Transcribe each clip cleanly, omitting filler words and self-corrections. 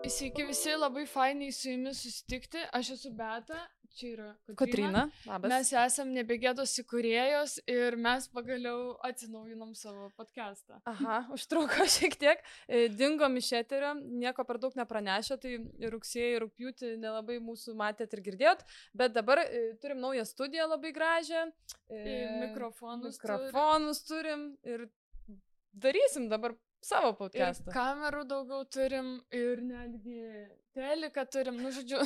Sveiki visi, labai fainai su jumis susitikti. Aš esu Beata, čia yra Kotryna. Labas. Mes esam Nebegėdos įkūrėjos ir mes pagaliau atsinaujinom savo podcastą. Aha, užtruko šiek tiek. Dingom iš eterio, nieko per daug nepranešė, tai rugsėjį, rugpjūtį nelabai mūsų matėt ir girdėjot, bet dabar turim naują studiją labai gražią. Mikrofonus turim ir darysim dabar savo podcastą. Ir kamerų daugiau turim ir netgi teliką turim, nu žodžiu,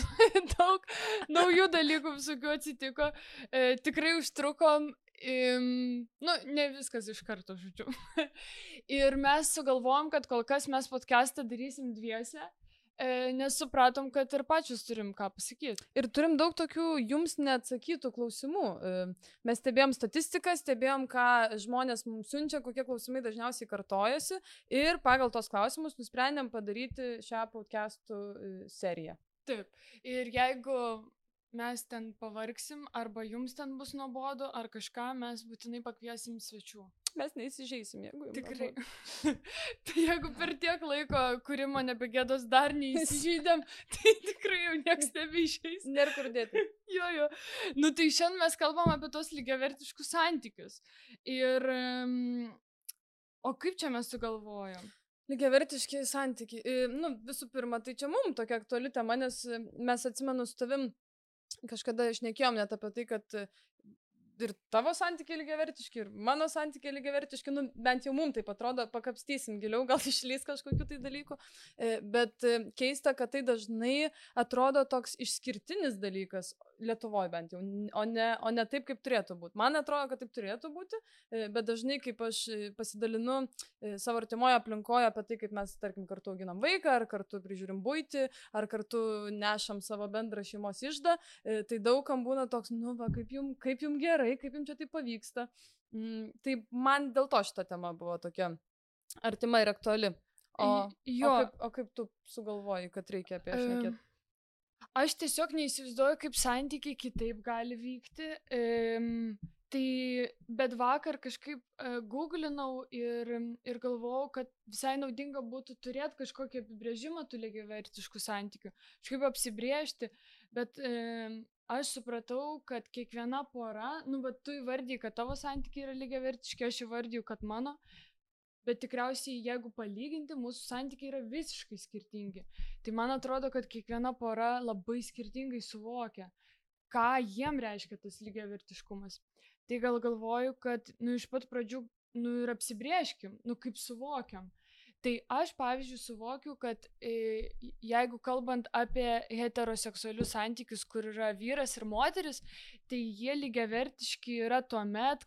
daug naujų dalykų visokių atsitiko. Tikrai užtrukom, nu ne viskas iš karto, žodžiu. Ir mes sugalvojom, kad kol kas mes podcastą darysim dviese, nes supratom, kad ir pačius turim ką pasakyti. Ir turim daug tokių jums neatsakytų klausimų. Mes stebėjom statistiką, stebėjom, ką žmonės mums siunčia, kokie klausimai dažniausiai kartojasi ir pagal tos klausimus nusprendėm padaryti šią podcastų seriją. Taip. Ir jeigu mes ten pavargsim, arba jums ten bus nuobodu, ar kažką, mes būtinai pakviesim svečių. Mes neįsižeisim, jeigu jums. Tikrai. Tai jeigu per tiek laiko kūrimo Nebegėdos dar neįsižeidėm, tai tikrai jau nieks nebeišeis. Nėra kur dėti. Jo. Nu tai šiandien mes kalbam apie tos lygiavertiškus santykius. Ir... O kaip čia mes sugalvojom? Lygiavertiški santykiai. Nu, visų pirma, tai čia mums tokia aktuali tema, nes mes atsimenu su tavim kažkada šnekėjom net apie tai, kad ir tavo santykiai lygiavertiški, ir mano santykiai lygiavertiški, nu, bent jau mums taip atrodo, pakapstysim giliau, gal išlys kažkokių tai dalykų, bet keista, kad tai dažnai atrodo toks išskirtinis dalykas, Lietuvoje bent jau, o ne taip, kaip turėtų būti. Man atrodo, kad taip turėtų būti, bet dažnai, kaip aš pasidalinu savo artimoje aplinkoje apie tai, kaip mes, tarkim, kartu auginam vaiką, ar kartu prižiūrim buitį, ar kartu nešam savo bendrą šeimos iždą, tai daugam būna toks, nu va, kaip jum gerai, kaip jums čia tai pavyksta. Tai man dėl to šita tema buvo tokia artima ir aktuali. O kaip tu sugalvoji, kad reikia apie šnekėti? Aš tiesiog neįsivaizduoju, kaip santykiai kitaip gali vykti. Bet vakar kažkaip googlinau ir galvojau, kad visai naudinga būtų turėti kažkokį apibrėžimą tų lygiavertiškų santykių. Kažkaip apsibrėžti, bet aš supratau, kad kiekviena pora, nu, bet tu įvardiji, kad tavo santykiai yra lygiavertiški, aš įvardiju, kad mano, bet tikriausiai, jeigu palyginti, mūsų santykiai yra visiškai skirtingi. Tai man atrodo, kad kiekviena pora labai skirtingai suvokia, ką jiem reiškia tas lygiavertiškumas. Tai gal galvoju, kad, nu, iš pat pradžių, nu, ir apsibrėžkim, nu, kaip suvokiam. Tai aš, pavyzdžiui, suvokiu, kad jeigu kalbant apie heteroseksualius santykius, kur yra vyras ir moteris, tai jie lygiavertiški yra tuomet,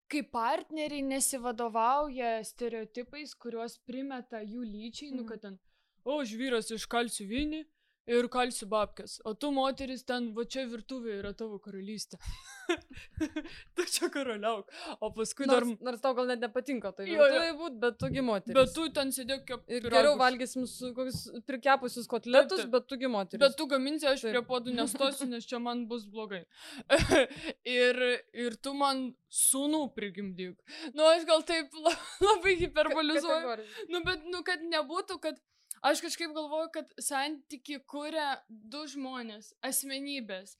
kai partneriai nesivadovauja stereotipais, kuriuos primeta jų lyčiai, nu, kad ten, aš vyras iškalsiu vinį ir kalsiu babkes, o tu moteris ten, va čia virtuvė yra tavo karalystė. Tu čia karaliauk. O paskui nors tau gal net nepatinka tai virtuvė būt, bet tugi moteris. Bet tu ten sėdėk kaip ir geriau valgysim su kokius prikepusius kotletus, bet tugi moteris. Bet tu gaminsi, aš prie podų nestosiu, nes čia man bus blogai. ir tu man sūnų prigimdyk. Nu, aš gal taip labai hiperbolizuoju. Nu, bet, nu, kad nebūtų, kad aš kažkaip galvoju, kad santyki kuria du žmonės, asmenybės,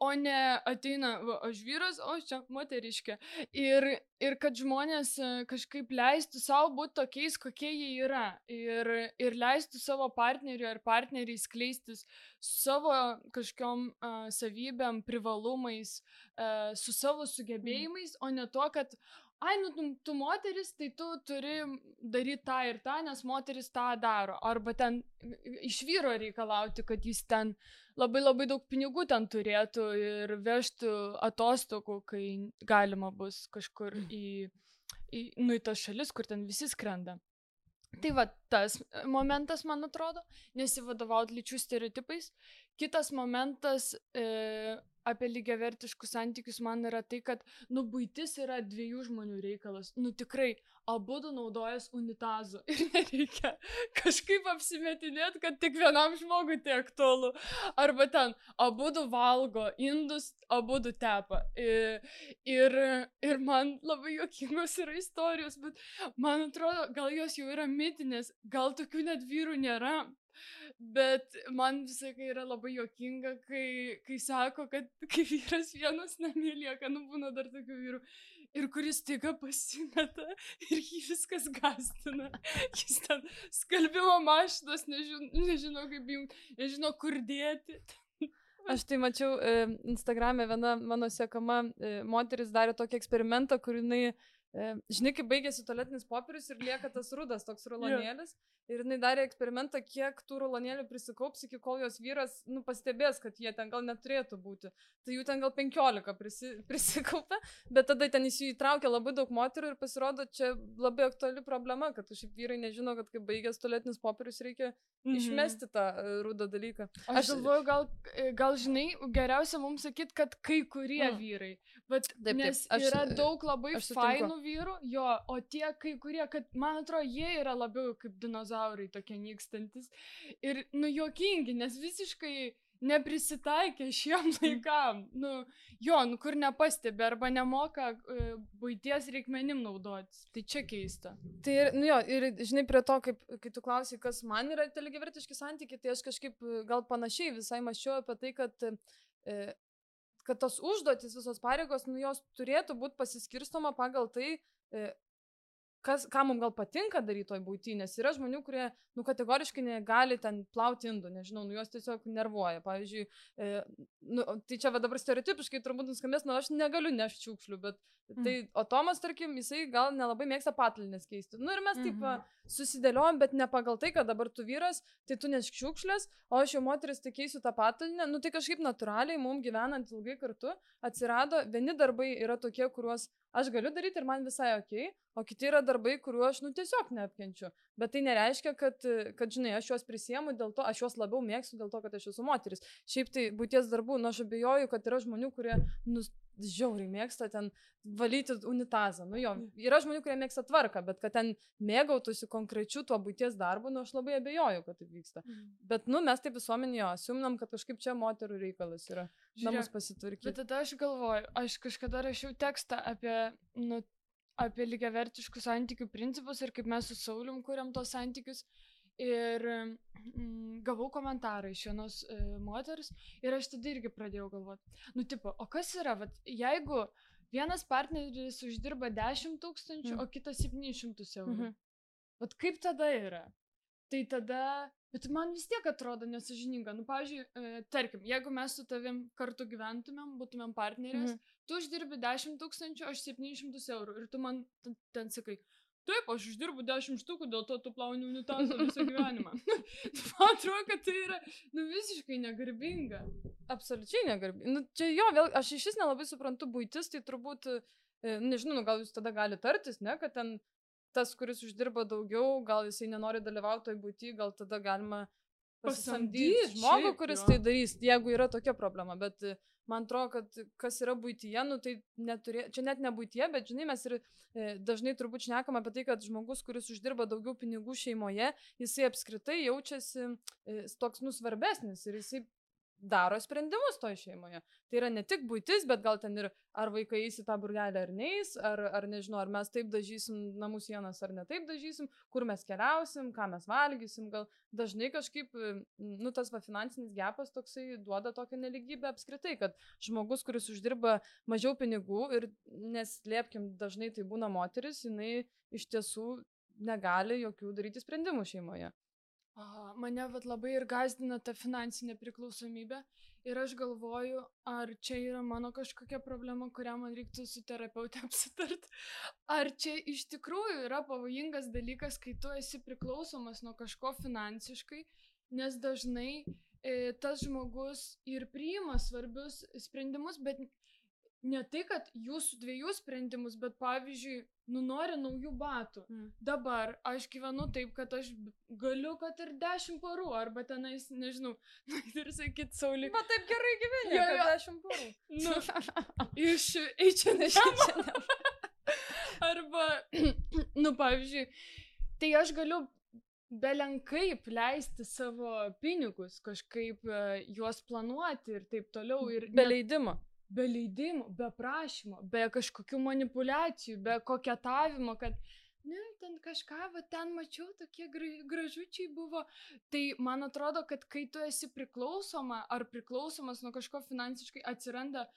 o ne ateina, va, aš vyras, o aš čia moteriškė. Ir kad žmonės kažkaip leistų savo būti tokiais, kokie jie yra. Ir leistų savo partneriui ar partneriai skleistis savo kažkokiom savybėm, privalumais, su savo sugebėjimais, o ne to, kad nu, tu moteris, tai tu turi daryti tą ir tą, nes moteris tą daro. Arba ten iš vyro reikalauti, kad jis ten labai labai daug pinigų ten turėtų ir vežtų atostogų, kai galima bus kažkur į tas šalis, kur ten visi skrenda. Tai va, tas momentas, man atrodo, nesivadovauti lyčių stereotipais. Kitas momentas, apie lygiavertiškus santykius man yra tai, kad, nu, buitis yra dviejų žmonių reikalas. Nu, tikrai, abudu naudojas unitazu ir nereikia kažkaip apsimetinėti, kad tik vienam žmogui tai aktualu. Arba ten, abudu valgo indus, abudu tepa. Ir man labai juokingos yra istorijos, bet man atrodo, gal jos jau yra mitinės, gal tokių net vyrų nėra. Bet man visai yra labai juokinga, kai sako, kad kai vyras vienas namie lieka, nu būna dar tokių vyrų, ir kuris staiga pasimeta ir jį viskas gastina. Jis ten skalbimo mašinos, nežino kaip jums, nežino kur dėti. Aš tai mačiau Instagram'e, viena mano sekama moteris darė tokį eksperimentą, kur jinai, žinai, kai baigėsi tualetinis popierius ir lieka tas rudas, toks rulonėlis. Ir jinai darė eksperimentą, kiek tų rulonėlių prisikaups, iki kol jos vyras, nu, pastebės, kad jie ten gal neturėtų būti. Tai jų ten gal 15 prisikaupė, bet tada ten įsitraukė labai daug moterų ir pasirodo, čia labai aktuali problema, kad šiaip vyrai nežino, kad kai baigęs tualetinis popierius reikia išmesti tą rudą dalyką. Aš galvoju, gal žinai, geriausia mums sakyti, kad kai kurie vyrai. Bet taip, nes yra daug labai fainų vyrų, jo, o tie kai kurie, kad man atrodo, jie yra labiau kaip dinozaurai tokie nykstantis. Ir, nu, juokingi, nes visiškai neprisitaikė šiem laikam. Nu, jo, nu, kur nepastebi arba nemoka buities reikmenim naudotis. Tai čia keista. Tai, nu jo, ir žinai, prie to, kai tu klausai, kas man yra tie lygiavertiški santykiai, tai aš kažkaip gal panašiai visai mąsčiau apie tai, kad tos užduotis, visos pareigos, nu, jos turėtų būti pasiskirstoma pagal tai, ką mums gal patinka daryti toj būty, nes yra žmonių, kurie, nu, kategoriškai negali ten plauti indų, nežinau, nu, jos tiesiog nervuoja. Pavyzdžiui, nu, tai čia va dabar stereotipiškai turbūt nuskambės, nu, aš negaliu nešti šiukšlių, bet tai, o Tomas, tarkim, jisai gal nelabai mėgsta patalynės keisti. Nu, ir mes taip susidėliojom, bet ne pagal tai, kad dabar tu vyras, tai tu nešk šiukšlės, o aš jau moteris tai keisiu tą patalinę. Nu, tai kažkaip natūraliai, mums gyvenant ilgai kartu, atsirado, vieni darbai yra tokie, kuriuos aš galiu daryti ir man visai okei, o kiti yra darbai, kuriuo aš, nu, tiesiog neapkenčiu. Bet tai nereiškia, kad, žinai, aš juos prisiemu dėl to, aš juos labiau mėgstu dėl to, kad aš esu moteris. Šiaip tai būties darbų, nu, aš abejoju, kad yra žmonių, kurie, nu, žiauriai mėgsta ten valyti unitazą. Nu jo, yra žmonių, kurie mėgsta tvarką, bet kad ten mėgautųsi konkrečiu tuo būties darbu, nu, aš labai abejoju, kad taip vyksta. Bet, nu, mes taip visuomenėje asiumnam, kad kažkaip čia moterų reikalas yra namus pasitvarkyti. Bet tada aš galvoju, aš kažkada rašiau tekstą apie lygiavertiškų santykių principus ir kaip mes su Saulium kuriam tos santykius. Ir gavau komentarą iš vienos moters ir aš tada irgi pradėjau galvoti. Nu, tipo, o kas yra, vat, jeigu vienas partneris uždirba 10 000, o kitas 700 eurų. Vat kaip tada yra? Tai tada, bet man vis tiek atrodo nesąžininga. Nu, pavyzdžiui, tarkim, jeigu mes su tavim kartu gyventumėm, būtumėm partnerės, tu uždirbi 10 000, aš 700 eurų ir tu man ten sakai, taip, aš uždirbu 10 štukų, dėl to tu plauni unitazą visą gyvenimą. Man atrodo, kad tai yra, nu, visiškai negarbinga. Absoliučiai negarbinga. Nu, čia jo, vėl, aš iš vis nelabai suprantu buitis, tai turbūt, nežinau, nu, gal jūs tada gali tartis, ne, kad ten tas, kuris uždirba daugiau, gal jisai nenori dalyvauti toj buity, gal tada galima pasamdyti žmogų, kuris tai darys, jeigu yra tokia problema, bet man atrodo, kad kas yra buityje, nu tai čia net ne buityje, bet žinai, mes ir dažnai turbūt šnekam apie tai, kad žmogus, kuris uždirba daugiau pinigų šeimoje, jisai apskritai jaučiasi toks svarbesnis ir jisai daro sprendimus toj šeimoje. Tai yra ne tik buitis, bet gal ten ir ar vaikai eis į tą burgelį ar neis, ar nežinau, ar mes taip dažysim namų sienas ar ne taip dažysim, kur mes keliausim, ką mes valgysim, gal dažnai kažkaip, nu, tas finansinis gepas toksai duoda tokią neligybę apskritai, kad žmogus, kuris uždirba mažiau pinigų ir neslėpkim, dažnai tai būna moteris, jinai iš tiesų negali jokių daryti sprendimų šeimoje. Mane labai ir gazdina ta finansinė priklausomybė ir aš galvoju, ar čia yra mano kažkokia problema, kurią man reiktų su terapeute apsitart, ar čia iš tikrųjų yra pavojingas dalykas, kai tu esi priklausomas nuo kažko finansiškai, nes dažnai tas žmogus ir priima svarbius sprendimus, bet ne tai, kad jūsų dviejų sprendimus, bet pavyzdžiui, nori naujų batų. Dabar aš gyvenu taip, kad aš galiu, kad ir 10 parų, arba tenais, nežinau, ir sakyt, Saulė. Bet taip gerai gyveni, kad 10 parų. Iš H&M. Arba, pavyzdžiui, tai aš galiu belenkaip leisti savo pinigus, kažkaip juos planuoti ir taip toliau. Ir be leidimo. Be leidimo, be prašymo, be kažkokių manipulacijų, be koketavimo, kad, ten kažką, ten mačiau, tokie gražučiai buvo. Tai man atrodo, kad kai tu esi priklausoma ar priklausomas nuo kažko finansiškai, atsiranda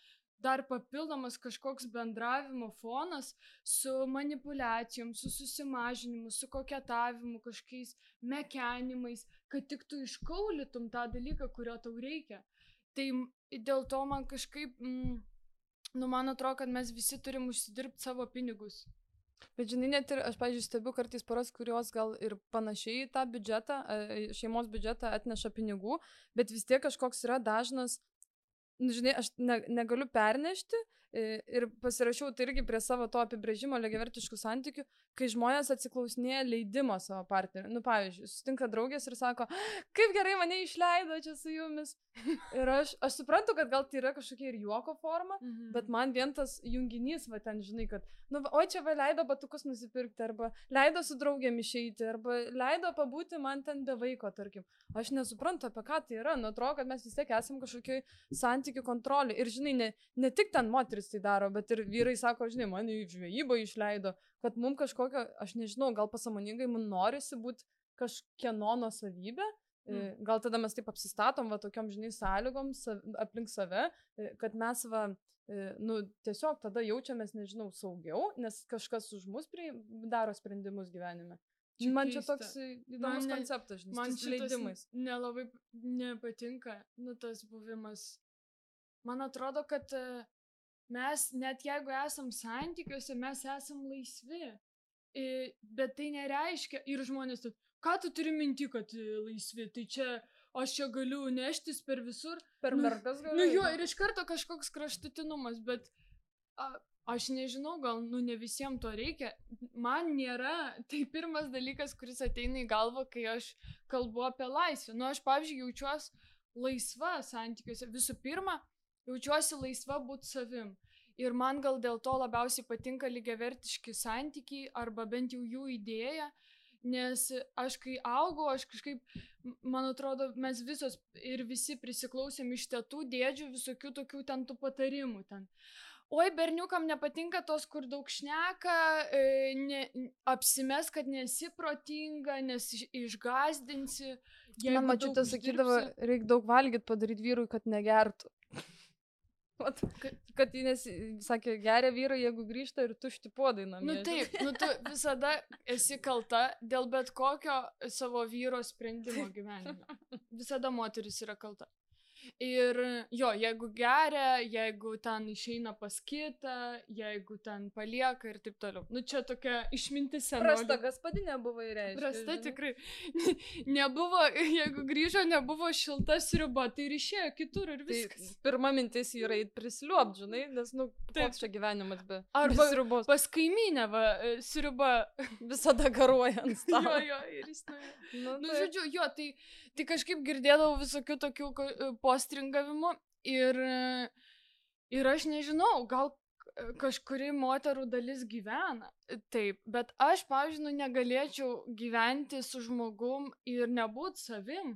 dar papildomas kažkoks bendravimo fonas su manipulacijom, su susimažinimu, su koketavimu, kažkokiais mekenimais, kad tik tu iškaulytum tą dalyką, kurio tau reikia. Tai dėl to man kažkaip, man atrodo, kad mes visi turim užsidirbti savo pinigus. Bet žinai, net ir aš, pavyzdžiui, stebiu kartais poras, kurios gal ir panašiai tą biudžetą, šeimos biudžetą atneša pinigų, bet vis tiek kažkoks yra dažnas, žinai, aš negaliu pernešti ir pasirašiau tai irgi prie savo to apibrėžimo lygiavertiškų santykių, kai žmonės atsiklausinėja leidimo savo partneriui. Pavyzdžiui, sutinka draugės ir sako, kaip gerai mane išleido čia su jumis. Ir aš suprantu, kad gal tai yra kažkokia ir juoko forma, bet man vien tas junginys, ten žinai, kad, oi čia leido batukus nusipirkti, arba leido su draugėm išeiti, arba leido pabūti man ten be vaiko, tarkim. Aš nesuprantu, apie ką tai yra. Atrodo, kad mes vis tiek esam kažkokioj santykių kontrolė. Ir žinai, ne tik ten moteris tai daro, bet ir vyrai sako, žinai, mane į žvejybą išleido, kad mums kažkokio, aš nežinau, gal pasąmoningai mums norisi būti kažkieno nuosavybė. Gal tada mes taip apsistatom tokiom, žinai, sąlygom aplink save, kad mes tiesiog tada jaučiamės, nežinau, saugiau, nes kažkas už mus daro sprendimus gyvenime. Man čia toks įdomus konceptas, žinai, man šitas leidimais. Nelabai nepatinka, tas buvimas. Man atrodo, kad mes, net jeigu esam santykiuose, mes esam laisvi. Bet tai nereiškia, ir žmonės, ką tu turi minti, kad laisvi, tai čia aš čia galiu neštis per visur. Per mergas galiu. Jo, ir iš karto kažkoks kraštutinumas, bet aš nežinau, gal, ne visiems to reikia. Man nėra, tai pirmas dalykas, kuris ateina į galvą, kai aš kalbu apie laisvę. Aš, pavyzdžiui, jaučiuosi laisva santykiuose. Visų pirma, jaučiuosi laisva būti savim. Ir man gal dėl to labiausiai patinka lygiavertiški santykiai, arba bent jau jų idėja. Nes aš kai augau, aš kažkaip, man atrodo, mes visos ir visi prisiklausėm iš tėtų, dėdžių, visokių tokių ten tų patarimų ten. Oi, berniukam nepatinka tos, kur daug šneka, apsimes, kad nesi protinga, nes išgazdinsi. Man mačiutė sakydavo, reikia daug valgyti, padaryti vyrui, kad negertų. Kad jis sakė, geria vyrai, jeigu grįžta ir tušti puodai namie. Taip, tu visada esi kalta dėl bet kokio savo vyro sprendimo gyvenime. Visada moteris yra kalta. Ir jo, jeigu geria, jeigu ten išeina pas kitą, jeigu ten palieka ir taip toliau. Čia tokia išmintis senolė. Prasta gaspadinė buvo įreiškia. Prasta tikrai. Nebuvo, jeigu grįžo, nebuvo šilta sriuba, tai ir išėjo kitur ir viskas. Tai pirma mintis yra įt prisliuopt, žinai, nes, koks čia gyvenimas be sriubos. Pas kaimynę, sriuba visada garuoja ant stalo. Jo, ir jis žodžiu, jo, tai kažkaip girdėdavau visokių tokių postringavimų ir aš nežinau, gal kažkuri moterų dalis gyvena taip, bet aš, pavyzdžiui, negalėčiau gyventi su žmogum ir nebūt savim,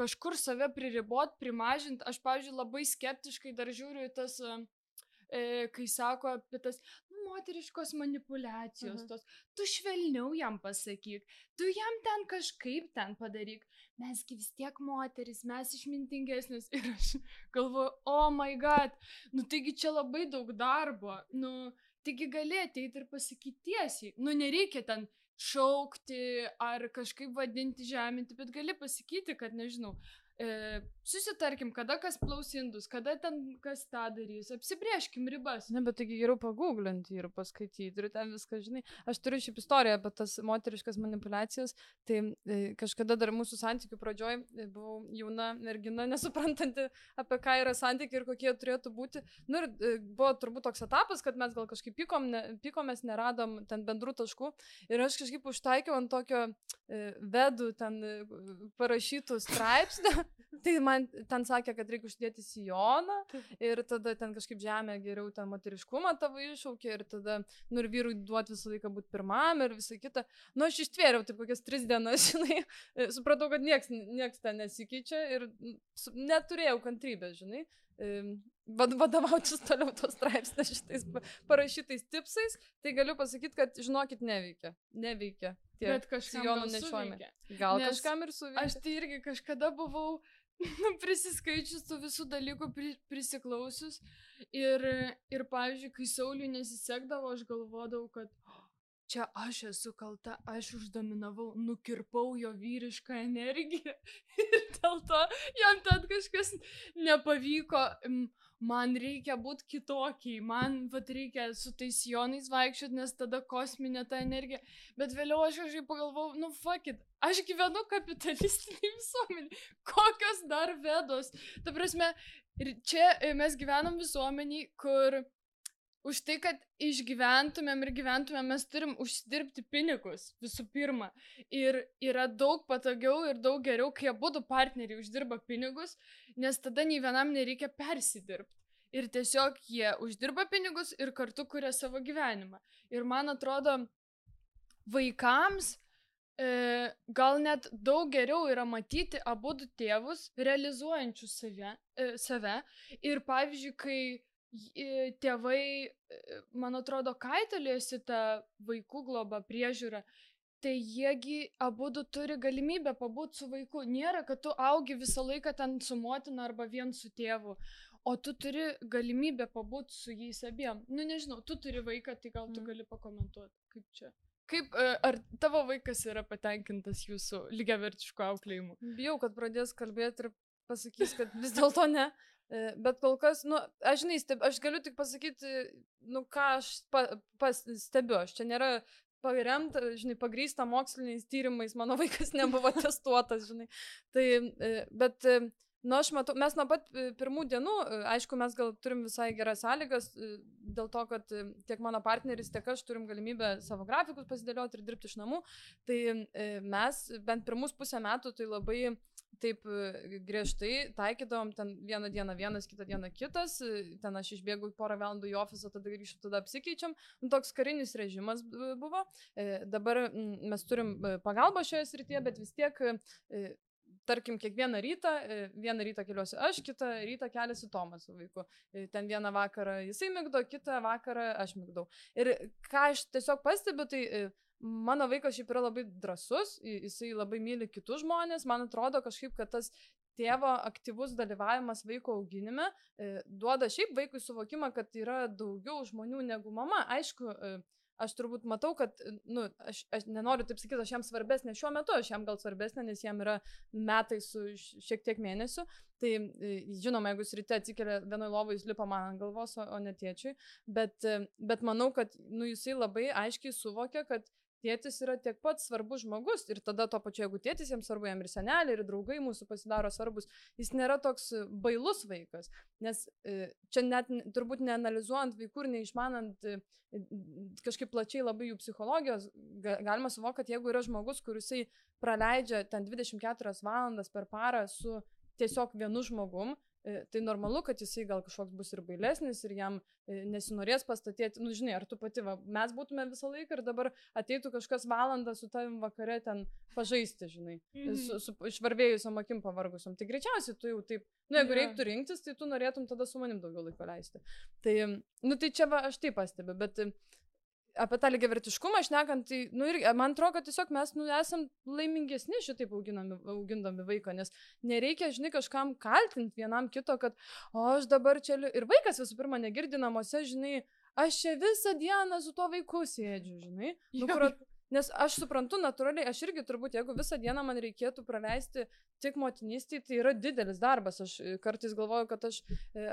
kažkur save priribot, primažint. Aš, pavyzdžiui, labai skeptiškai dar žiūriu į tas, kai sako apie tas moteriškos manipulacijos, tos, tu švelniau jam pasakyk, tu jam ten kažkaip ten padaryk, mesgi vis tiek moteris, mes išmintingesnis. Ir aš galvoju, oh my god, taigi čia labai daug darbo, taigi gali ateiti ir pasakyti tiesiai, nereikia ten šaukti ar kažkaip vadinti, žeminti, bet gali pasakyti, kad, nežinau, susitarkim, kada kas plaus indus, kada ten kas tą darys, apsibrėžkim ribas. Ne, bet taigi geriau paguglinti ir paskaityti ir ten viską, žinai. Aš turiu šiaip istoriją apie tas moteriškas manipulacijas, tai kažkada dar mūsų santykių pradžioj buvau jauna mergina, nesuprantanti, apie ką yra santykiai ir kokie turėtų būti. Nu ir buvo turbūt toks etapas, kad mes gal kažkaip pykomės, neradom ten bendrų taškų ir aš kažkaip užtaikiau ant tokio vedų ten parašytų straipsnių. Tai man ten sakė, kad reikia uždėti sijoną ir tada ten kažkaip žemė geriau ten moteriškumą tavo iššaukė ir tada, nu ir vyrui duoti visą laiką būti pirmam ir visą kitą. Nu aš ištvėriau taip kokias 3 dienas, žinai, supratau, kad nieks ten nesikeičia ir neturėjau kantrybės, žinai, vadovautis toliau tos straipsnės šitais parašytais tipsais, tai galiu pasakyti, kad žinokit, neveikia. Bet kažkam nešiojame. Gal kažkam ir suveikia. Aš tai irgi kažkada buvau prisiskaičius tų visų dalykų, prisiklausius ir pavyzdžiui, kai Sauliui nesisekdavo, aš galvodavau, kad čia aš esu kalta, aš uždominavau, nukirpau jo vyrišką energiją ir dėl to jam ten kažkas nepavyko. Man reikia būti kitokiai, man reikia su tais sijonais vaikščioti, nes tada kosminė ta energija. Bet vėliau aš kažkaip pagalvojau, nu fuck it, aš gyvenu kapitalistiniai visuomeniai, kokios dar vedos. Ta prasme, čia mes gyvenam visuomeniai, kur už tai, kad išgyventumėm ir gyventumėm, mes turim užsidirbti pinigus visų pirma. Ir yra daug patogiau ir daug geriau, kai abudu partneriai uždirba pinigus, nes tada nei vienam nereikia persidirbti. Ir tiesiog jie uždirba pinigus ir kartu kuria savo gyvenimą. Ir man atrodo, vaikams gal net daug geriau yra matyti abudu tėvus realizuojančius save. Ir pavyzdžiui, kai tėvai, man atrodo, kaitaliojasi tą vaikų globą priežiūrą, tai jiegi abudu turi galimybę pabūti su vaiku. Nėra, kad tu augi visą laiką ten su motina arba vien su tėvu, o tu turi galimybę pabūti su jais abiem. Nu nežinau, tu turi vaiką, tai gal tu gali pakomentuoti, kaip čia. Ar tavo vaikas yra patenkintas jūsų lygiavertišku auklėjimu? Bijau, kad pradės kalbėti ir pasakys, kad vis dėlto ne. Bet kol kas, nu, aš žinai, aš galiu tik pasakyti, nu, ką aš stebiu. Aš čia nėra paremta, žinai, pagrįsta moksliniais tyrimais, mano vaikas nebuvo testuotas, žinai. Tai, bet, nu, aš matau, mes nuo pat pirmų dienų, aišku, mes gal turim visai geras sąlygas, dėl to, kad tiek mano partneris, tiek aš turim galimybę savo grafikus pasidėlioti ir dirbti iš namų. Tai mes bent pirmus pusę metų tai labai taip griežtai taikydavom ten vieną dieną vienas, kitą dieną kitas, ten aš išbėgu porą valandų į ofisą, tada grįžtu, tada apsikeičiam. Nu, toks karinis režimas buvo. Dabar mes turim pagalbą šioje srityje, bet vis tiek, tarkim, kiekvieną rytą keliuosi aš, kitą rytą keliasi Tomas su vaiku. Ten vieną vakarą jisai migdo, kitą vakarą aš migdau. Ir ką aš tiesiog pastebiu, tai mano vaikas šiaip yra labai drąsus, jisai labai myli kitus žmonės, man atrodo kažkaip, kad tas tėvo aktyvus dalyvavimas vaiko auginime duoda šiaip vaikui suvokimą, kad yra daugiau žmonių negu mama. Aišku, aš turbūt matau, kad, nu, aš nenoriu taip sakyti, aš jam svarbesnė šiuo metu, aš jam gal svarbesnė, nes jam yra metai su šiek tiek mėnesių. Tai žinoma, jeigu jis ryte atsikelia vienoj lovoj, jis lipa man ant galvos, o ne tėčiui. Bet manau, kad nu, jisai labai aiškiai suvokia, kad tėtis yra tiek pat svarbus žmogus ir tada to pačiu, jeigu tėtis jiems svarbu, jam ir seneliai, ir draugai mūsų pasidaro svarbus, jis nėra toks bailus vaikas, nes čia net turbūt neanalizuojant vaikų ir neišmanant kažkaip plačiai labai jų psichologijos, galima suvokti, kad jeigu yra žmogus, kur jisai praleidžia ten 24 valandas per parą su tiesiog vienu žmogum, tai normalu, kad jisai gal kažkoks bus ir bailesnis ir jam nesinorės pastatyti, nu žinai, ar tu pati, mes būtume visą laiką ir dabar ateitų kažkas valandą su tavim vakare ten pažaisti, žinai, su išvarvėjusiom akim pavargusiom. Tai greičiausiai tu jau taip, nu jeigu reiktų rinktis, tai tu norėtum tada su manim daugiau laiko leisti. Tai, nu tai čia aš taip pastebiu, bet apie tą lygiavertiškumą šnekant, tai, nu, ir man atrodo, kad tiesiog mes, nu, esam laimingesni šitaip augindami vaiką, nes nereikia, žinai, kažkam kaltinti vienam kito, kad, o aš dabar čia, ir vaikas visų pirma negirdi namuose, žinai, aš čia visą dieną su tuo vaiku sėdžiu, žinai. Nes aš suprantu natūraliai, aš irgi turbūt, jeigu visą dieną man reikėtų praleisti tik motinystėje, tai yra didelis darbas. Aš kartais galvoju, kad aš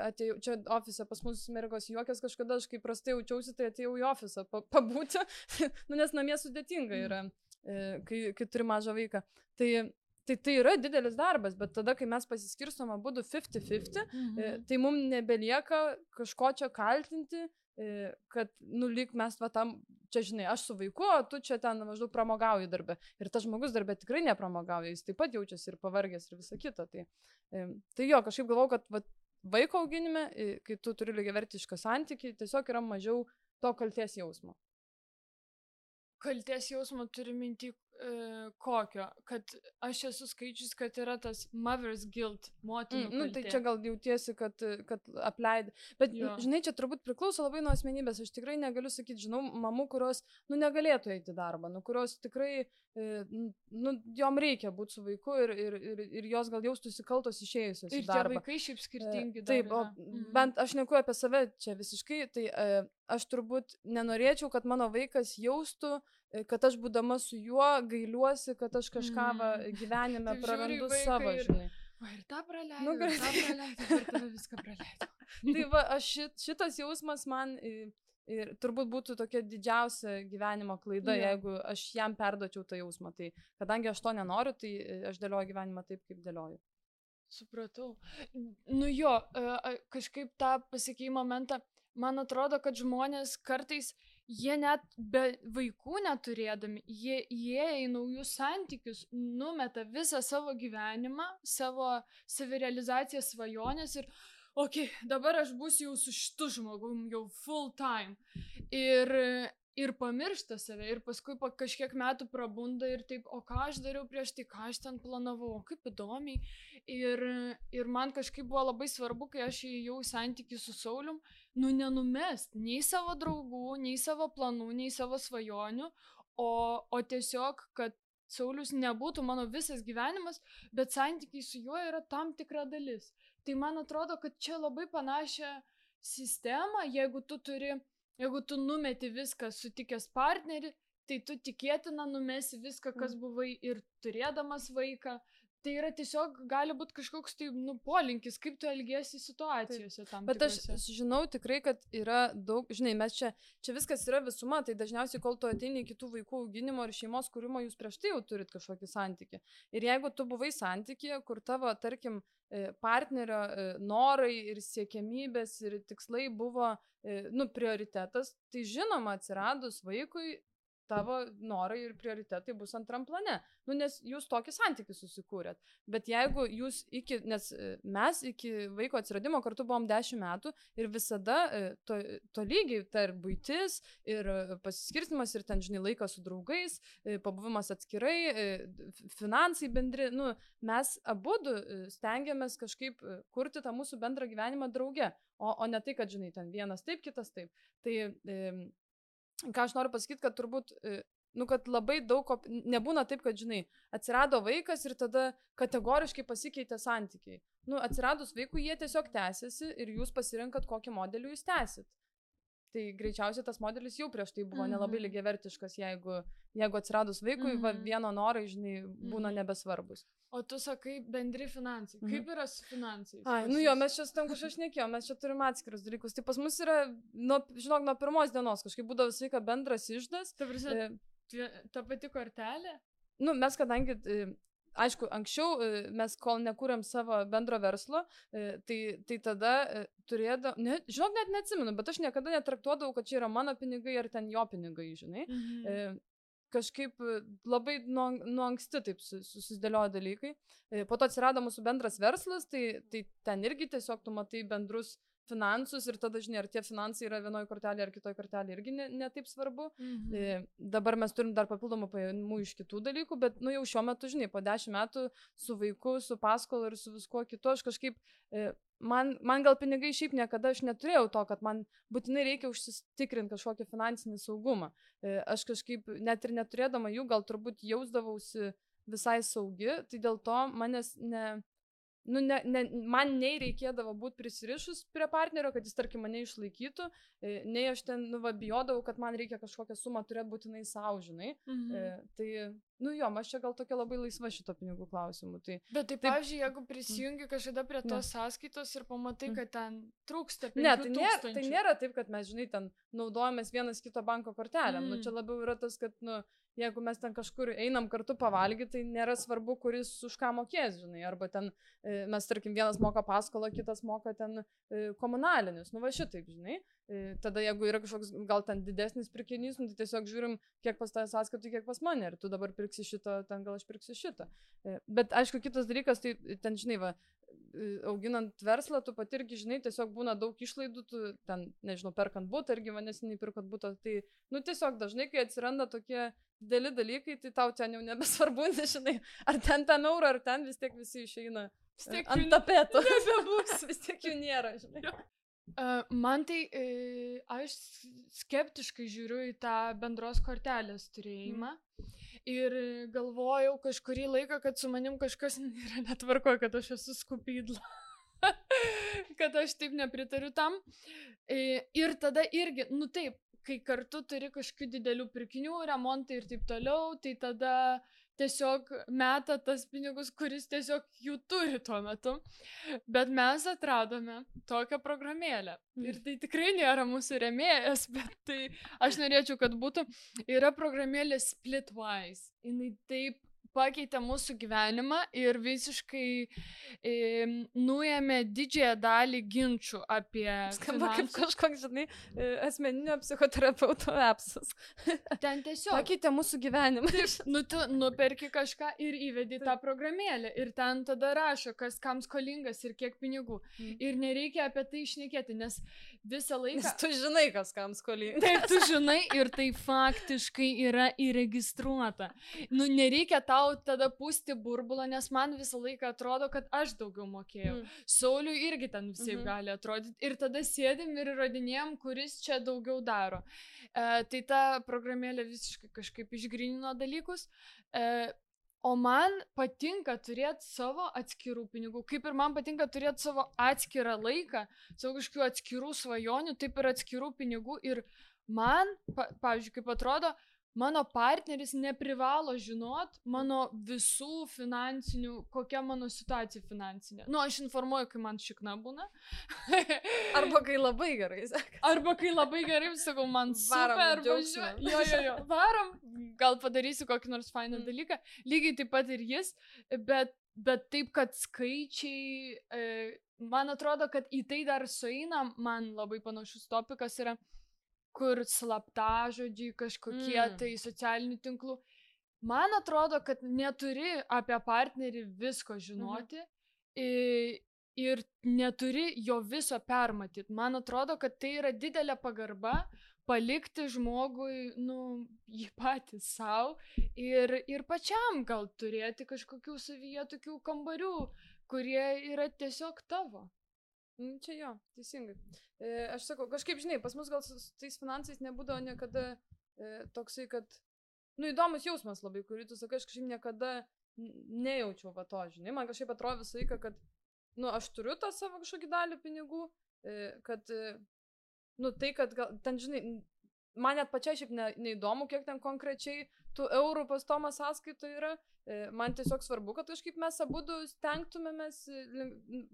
atėjau, čia ofise pas mus mergos juokias kažkada, aš kai prastai jaučiausi, tai atėjau į ofisą pabūti, nes namie sudėtinga yra, kai turi mažą vaiką. Tai yra didelis darbas, bet tada, kai mes pasiskirstom abudu 50-50, tai mums nebelieka kažko čia kaltinti, kad, lyg mes tam, čia žinai, aš su vaiku, o tu čia ten maždaug pramogauji darbę. Ir tas žmogus darbę tikrai nepramogauja, jis taip pat jaučiasi ir pavargęs ir visa kita. Tai jo, kažkaip galvau, kad vaiko auginime, kai tu turi lygiavertišką santykį, tiesiog yra mažiau to kaltės jausmo. Kaltės jausmo turi minti kokio, kad aš esu skaičius, kad yra tas mother's guilt, motinų kaltė. Tai čia gal jautiesi, kad apleidai. Bet, žinai, čia turbūt priklauso labai nuo asmenybės. Aš tikrai negaliu sakyti, žinau, mamų, kurios, negalėtų eiti į darbą, kurios tikrai, jom reikia būti su vaiku ir jos gal jaustųsi kaltos išėjusios į darbą. Ir tie vaikai šiaip skirtingi. Taip, bent aš neku apie save čia visiškai, tai aš turbūt nenorėčiau, kad mano vaikas jaustų, kad aš būdama su juo gailiuosi, kad aš kažką gyvenime prarandu savo, žinai. O ir tą praleidau, ir tą viską praleidau. Tai va, šitas jausmas man ir turbūt būtų tokia didžiausia gyvenimo klaida, jeigu aš jam perduočiau tą jausmą. Tai kadangi aš to nenoriu, tai aš dėlioju gyvenimą taip, kaip dėlioju. Supratau. Kažkaip tą pasikeimo momentą, man atrodo, kad žmonės kartais jie net be vaikų neturėdami, jie įėję į naujus santykius, numeta visą savo gyvenimą, savo savirealizaciją, svajonės ir dabar aš būsiu jau su šitu žmogum, jau full time. Ir pamiršta save, ir paskui po kažkiek metų prabunda ir taip, o ką aš dariau prieš tai, ką aš ten planavau, kaip įdomiai. Ir man kažkaip buvo labai svarbu, kai aš įėjau į santykį su Saulium, nenumest nei savo draugų, nei savo planų, nei savo svajonių, o tiesiog, kad Saulius nebūtų mano visas gyvenimas, bet santykiai su juo yra tam tikra dalis. Tai man atrodo, kad čia labai panašią sistemą, jeigu tu numeti viską sutikęs partnerį, tai tu tikėtina numesi viską, kas buvai ir turėdamas vaiką. Tai yra tiesiog, gali būti kažkoks polinkis, kaip tu elgiesi situacijose tam tikrose. Bet aš žinau tikrai, kad yra daug, žinai, mes čia viskas yra visuma, tai dažniausiai, kol tu ateini į kitų vaikų auginimo ir šeimos kūrimo, jūs prieš tai jau turit kažkokį santykį. Ir jeigu tu buvai santykyje, kur tavo, tarkim, partnerio norai ir siekiamybės ir tikslai buvo, prioritetas, tai žinoma, atsiradus vaikui, tavo norai ir prioritetai bus antram plane. Nes jūs tokį santykį susikūrėt. Bet jeigu jūs nes mes iki vaiko atsiradimo kartu buvom 10 metų ir visada to lygiai, tai ir buitis, ir pasiskirstimas, ir ten, žinai, laikas su draugais, pabuvimas atskirai, finansai bendri, mes abudu stengiamės kažkaip kurti tą mūsų bendrą gyvenimą drauge, o ne tai, kad, žinai, ten vienas taip, kitas taip. Tai ką aš noriu pasakyti, kad turbūt, kad labai daug, nebūna taip, kad, žinai, atsirado vaikas ir tada kategoriškai pasikeitė santykiai. Atsiradus vaikui jie tiesiog tęsiasi ir jūs pasirinkat, kokį modelį jūs tęsit. Tai greičiausiai tas modelis jau prieš tai buvo nelabai lygiavertiškas, jeigu atsiradus vaikui, vieno norai, žinai, būna nebesvarbus. O tu sakai bendri finansai. Kaip yra su finansais? Mes čia tam kažką šnekėjom, mes čia turim atskirus dalykus. Tai pas mus yra, žinok, nuo pirmos dienos kažkaip būdavo visą laiką bendras išdas. Ta pati kortelė? Mes kadangi, aišku, anksčiau mes kol nekūrėm savo bendro verslo, tai tada turėdavau, žinok, net neatsimenu, bet aš niekada netraktuodavau, kad čia yra mano pinigai ar ten jo pinigai, žinai. Kažkaip labai nuo anksti taip susidėliojo dalykai. Po to atsirado mūsų bendras verslas, tai ten irgi tiesiog tu matai bendrus finansus ir tada, žinai, ar tie finansai yra vienoje kortelėje ar kitoje kortelėje irgi ne taip svarbu. Dabar mes turim dar papildomų pajamų iš kitų dalykų, bet jau šiuo metu, žinai, po 10 metų su vaiku, su paskolu ir su viskuo kitu, aš kažkaip, man gal pinigai šiaip niekada aš neturėjau to, kad man būtinai reikia užsitikrinti kažkokį finansinį saugumą. Aš kažkaip net ir neturėdama jų, gal turbūt jausdavausi visai saugi, tai dėl to manęs nu, man nei reikėdavo būti prisirišus prie partnerio, kad jis, tarkim, mane išlaikytų, nei aš ten, nu, va, bijodavau, kad man reikia kažkokią sumą turėti būtinai savo, žinai. Tai, nu jo, aš čia gal tokia labai laisva šito pinigų klausimų. Tai, bet tai, pavyzdžiui, jeigu prisijungi kažkada prie tos sąskaitos ir pamatai, kad ten trūksta 5 tūkstančių. Tai nėra taip, kad mes, žinai, ten naudojamės vienas kito banko kortelėm. Nu, čia labiau yra tas, kad, nu, jeigu mes ten kažkur einam kartu pavalgyti, tai nėra svarbu, kuris už ką mokės, žinai. Arba ten mes, tarkim, vienas moka paskolą, kitas moka ten komunalinius. Nu, va šitaip, žinai. Tada, jeigu yra kažkoks gal ten didesnis pirkinys, nu, tai tiesiog žiūrim, kiek pas tavęs sąskaitų, kiek pas mane. Ir tu dabar pirksi šitą, ten gal aš pirksiu šitą. Bet, aišku, kitas dalykas, tai ten, žinai, va, auginant verslą, tu pati irgi, žinai, tiesiog būna daug išlaidų, tu ten, nežinau, perkant butą, irgi neseniai pirkant butą. Tai, nu, tiesiog dažnai, kai atsiranda tokie dideli dalykai, tai tau ten jau nebesvarbu, nežinai, ar ten eurą, ar ten vis tiek visi išeina ant tapeto. Nebebus, vis tiek jų nėra, žinai. Man tai, aš skeptiškai žiūriu į tą bendros kortelės turėjimą ir galvojau kažkurį laiką, kad su manim kažkas yra netvarkoje, kad aš esu skupydla, kad aš taip nepritariu tam. Ir tada irgi, nu taip, kai kartu turi kažkokių didelių pirkinių, remontai ir taip toliau, tai tada tiesiog meta tas pinigus, kuris tiesiog jų turi tuo metu. Bet mes atradome tokią programėlę. Ir tai tikrai nėra mūsų rėmėjas, bet tai aš norėčiau, kad būtų. Yra programėlė Splitwise. Jinai taip pakeitė mūsų gyvenimą ir visiškai nuėmė didžiąją dalį ginčių apie skamba kaip kažkoks, žinai, asmeninio psichoterapeuto appsas. Ten tiesiog pakeitė mūsų gyvenimą. Nu, tu nuperki kažką ir įvedi tą programėlę ir ten tada rašo, kas kam skolingas ir kiek pinigų. Ir nereikia apie tai šnekėti, nes visą laiką... Nes tu žinai, kas kam skolingas. Taip, tu žinai ir tai faktiškai yra įregistruota. Nu, nereikia tau tada pūsti burbulą, nes man visą laiką atrodo, kad aš daugiau mokėjau. Sauliui irgi ten visai gali atrodyti. Ir tada sėdim ir įrodinėjom, kuris čia daugiau daro. Tai ta programėlė visiškai kažkaip išgrynino dalykus. O man patinka turėti savo atskirų pinigų. Kaip ir man patinka turėti savo atskirą laiką, savo kažkokių atskirų svajonių, taip ir atskirų pinigų. Ir man, pavyzdžiui, kaip atrodo, mano partneris neprivalo žinot mano visų finansinių, kokia mano situacija finansinė. Nu, aš informuoju, kai man šikna būna. Arba kai labai gerai, sakai. Arba kai labai gerai, sakau, man super, jo, varom, gal padarysiu kokį nors fainą dalyką. Lygiai taip pat ir jis, bet taip, kad skaičiai, man atrodo, kad į tai dar sueina, man labai panašus topikas yra, kur slaptažodžiai kažkokie tai socialinių tinklų. Man atrodo, kad neturi apie partnerį visko žinoti ir neturi jo viso permatyti. Man atrodo, kad tai yra didelė pagarba palikti žmogui, nu, jį patį savo ir pačiam gal turėti kažkokių savyje tokių kambarių, kurie yra tiesiog tavo. Čia jo, teisingai. Aš sakau, kažkaip, žinai, pas mus gal su tais finansais nebūdavo niekada toksai, kad, nu, įdomus jausmas labai, kurį tu sakai, aš kažkaip niekada nejaučiau va to, žinai. Man kažkaip atrodo visą laiką, kad, nu, aš turiu tą savo kažkokį dalį pinigų, kad, nu, tai, kad gal, ten, žinai, man net pačiai šiaip neįdomu, kiek ten konkrečiai tų eurų pas Tomą sąskaito yra. Man tiesiog svarbu, kad kažkaip mes abudu stengtumėmės,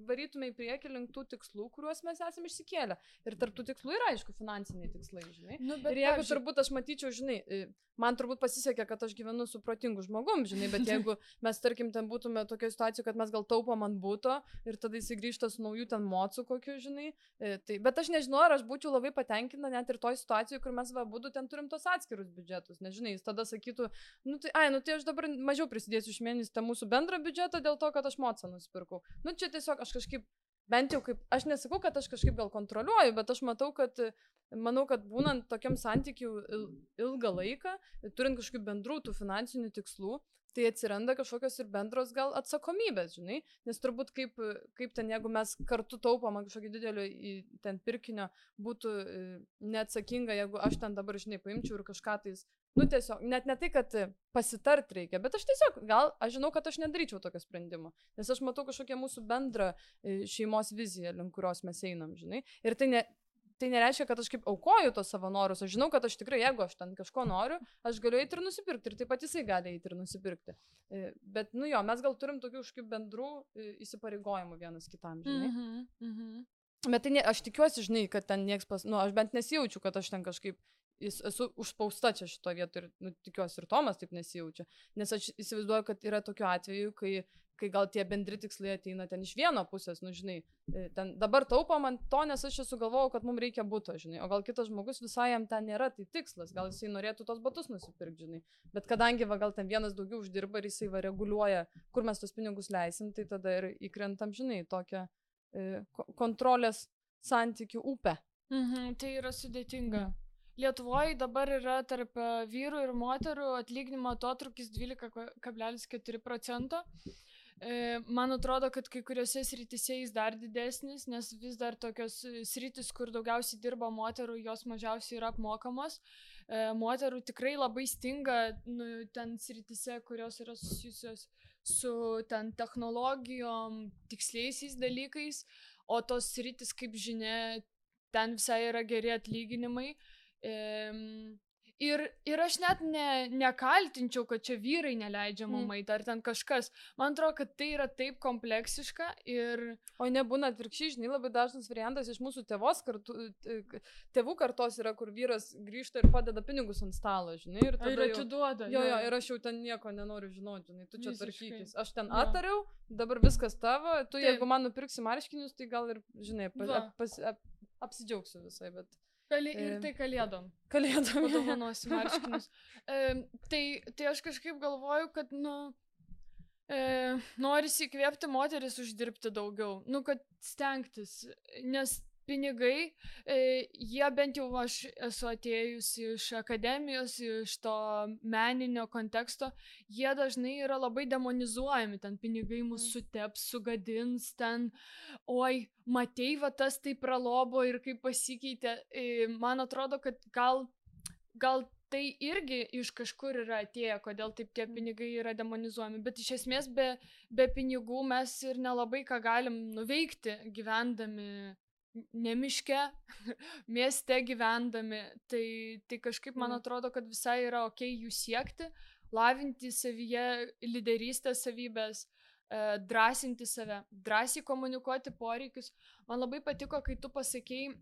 varytume į priekį link tų tikslų, kuriuos mes esame išsikėlę. Ir tarp tų tikslų yra, aišku, finansiniai tikslai, žinai. Nu, ir jeigu turbūt aš matyčiau, žinai, man turbūt pasisekė, kad aš gyvenu su protingu žmogum, žinai, bet jeigu mes, tarkim, ten būtume tokia situacija, kad mes gal taupom ant būto ir tada jis grįžta su naujų ten mocų kokiu, žinai. Tai, bet aš nežinau, ar aš būčiau labai patenkinta net ir toj situacijoje, kur mes abudu ten turim tos atskirus biudžetus. Nežinai, jis tada sakytų, nu tai aš dabar mažiau prisidėsiu iš mėnesį tą mūsų bendrą biudžetą dėl to, kad aš mocą nusipirkau. Nu čia tiesiog aš kažkaip, bent jau kaip, aš nesakau, kad aš kažkaip gal kontroliuoju, bet aš matau, kad manau, kad būnant tokiam santykiu ilgą laiką, turint kažkokių bendrų tų finansinių tikslų, tai atsiranda kažkokios ir bendros gal atsakomybės, žinai, nes turbūt kaip ten, jeigu mes kartu taupom kažkokį didelį ten pirkinio, būtų neatsakinga, jeigu aš ten dabar, žinai, paimčiau ir kažką tais, nu tiesiog, net ne tai, kad pasitart reikia, bet aš tiesiog, aš žinau, kad aš nedaryčiau tokio sprendimo, nes aš matau kažkokią mūsų bendrą šeimos viziją, link kurios mes einam, žinai, ir tai nereiškia, kad aš kaip aukoju tos savo norus, aš žinau, kad aš tikrai, jeigu aš ten kažko noriu, aš galiu eiti ir nusipirkti, ir taip pat jisai gali eiti ir nusipirkti. Bet, nu jo, mes gal turim tokių kažkokių bendrų įsipareigojimų vienas kitam, žinai. Bet tai aš tikiuosi, žinai, kad ten nieks aš bent nesijaučiu, kad aš ten kažkaip esu užspausta čia šito vietoj ir tikiuosi ir Tomas taip nesijaučia, nes aš įsivaizduoju, kad yra tokių atvejų, kai gal tie bendri tikslai ateina ten iš vieno pusės, nu žinai, ten dabar taupom ant to, nes aš čia sugalvojau, kad mums reikia buto, žinai, o gal kitas žmogus visai jam ten nėra, tai tikslas, gal jisai norėtų tos batus nusipirkti, žinai, bet kadangi gal ten vienas daugiau uždirba ir jisai reguliuoja, kur mes tos pinigus leisim, tai tada ir įkrentam, žinai, tokią kontrolės santykių upę. Tai yra sudėtinga. Lietuvoje dabar yra tarp vyrų ir moterų atlyginimo atotrūkis 12,4%. Man atrodo, kad kai kuriuose srityse jis dar didesnis, nes vis dar tokios sritis, kur daugiausiai dirba moterų, jos mažiausiai yra apmokamos. Moterų tikrai labai stinga ten srityse, kurios yra susijusios su ten technologijom, tiksliaisiais dalykais, o tos sritis, kaip žinia, ten visai yra geri atlyginimai. Ir aš net nekaltinčiau, kad čia vyrai neleidžia mum eiti, ar ten kažkas. Man atrodo, kad tai yra taip kompleksiška ir... O nebūna atvirkščiai, žinai, labai dažnas variantas iš mūsų tėvų kartos yra, kur vyras grįžta ir padeda pinigus ant stalo, žinai. Ir tada atiduoda. Jo, ir aš jau ten nieko nenoriu žinoti, žinai, tu čia tvarkykis. Aš ten atariau, dabar viskas tavo, tu jeigu man nupirksi marškinius, tai gal ir, žinai, apsidžiaugsiu visai, bet... Ir tai kalėdom. Kalėdom. Padovanosi marškinius. Tai aš kažkaip galvoju, kad, norisi įkvėpti moteris uždirbti daugiau. Kad stengtis, nes pinigai, jie bent jau aš esu atėjusi iš akademijos, iš to meninio konteksto, jie dažnai yra labai demonizuojami, ten pinigai mus suteps, sugadins, ten, oi, matei, va tas tai pralobo ir kaip pasikeitė. Man atrodo, kad gal tai irgi iš kažkur yra atėję, kodėl taip tie pinigai yra demonizuojami, bet iš esmės be pinigų mes ir nelabai ką galim nuveikti gyvendami ne miške, mieste gyvendami, tai kažkaip man atrodo, kad visai yra okei jų siekti, lavinti savyje lyderystės savybės, drąsinti save, drąsiai komunikuoti poreikius. Man labai patiko, kai tu pasakei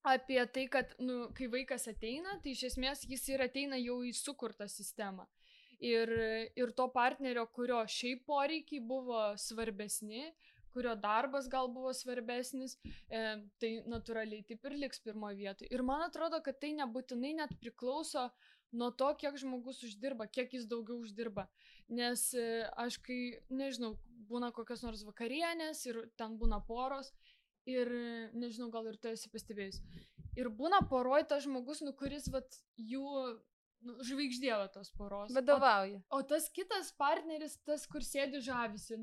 apie tai, kad kai vaikas ateina, tai iš esmės jis ir ateina jau į sukurtą sistemą. Ir to partnerio, kurio šiaip poreikiai buvo svarbesni, kurio darbas gal buvo svarbesnis, tai natūraliai taip ir liks pirmoje vietoje. Ir man atrodo, kad tai nebūtinai net priklauso nuo to, kiek žmogus uždirba, kiek jis daugiau uždirba. Nes aš kai, nežinau, būna kokios nors vakarienės ir ten būna poros ir, nežinau, gal ir tu esi pastebėjus. Ir būna poroj tas žmogus, kuris jų žvaigždė tos poros. Vadovauja. O tas kitas partneris, tas, kur sėdi žavisi,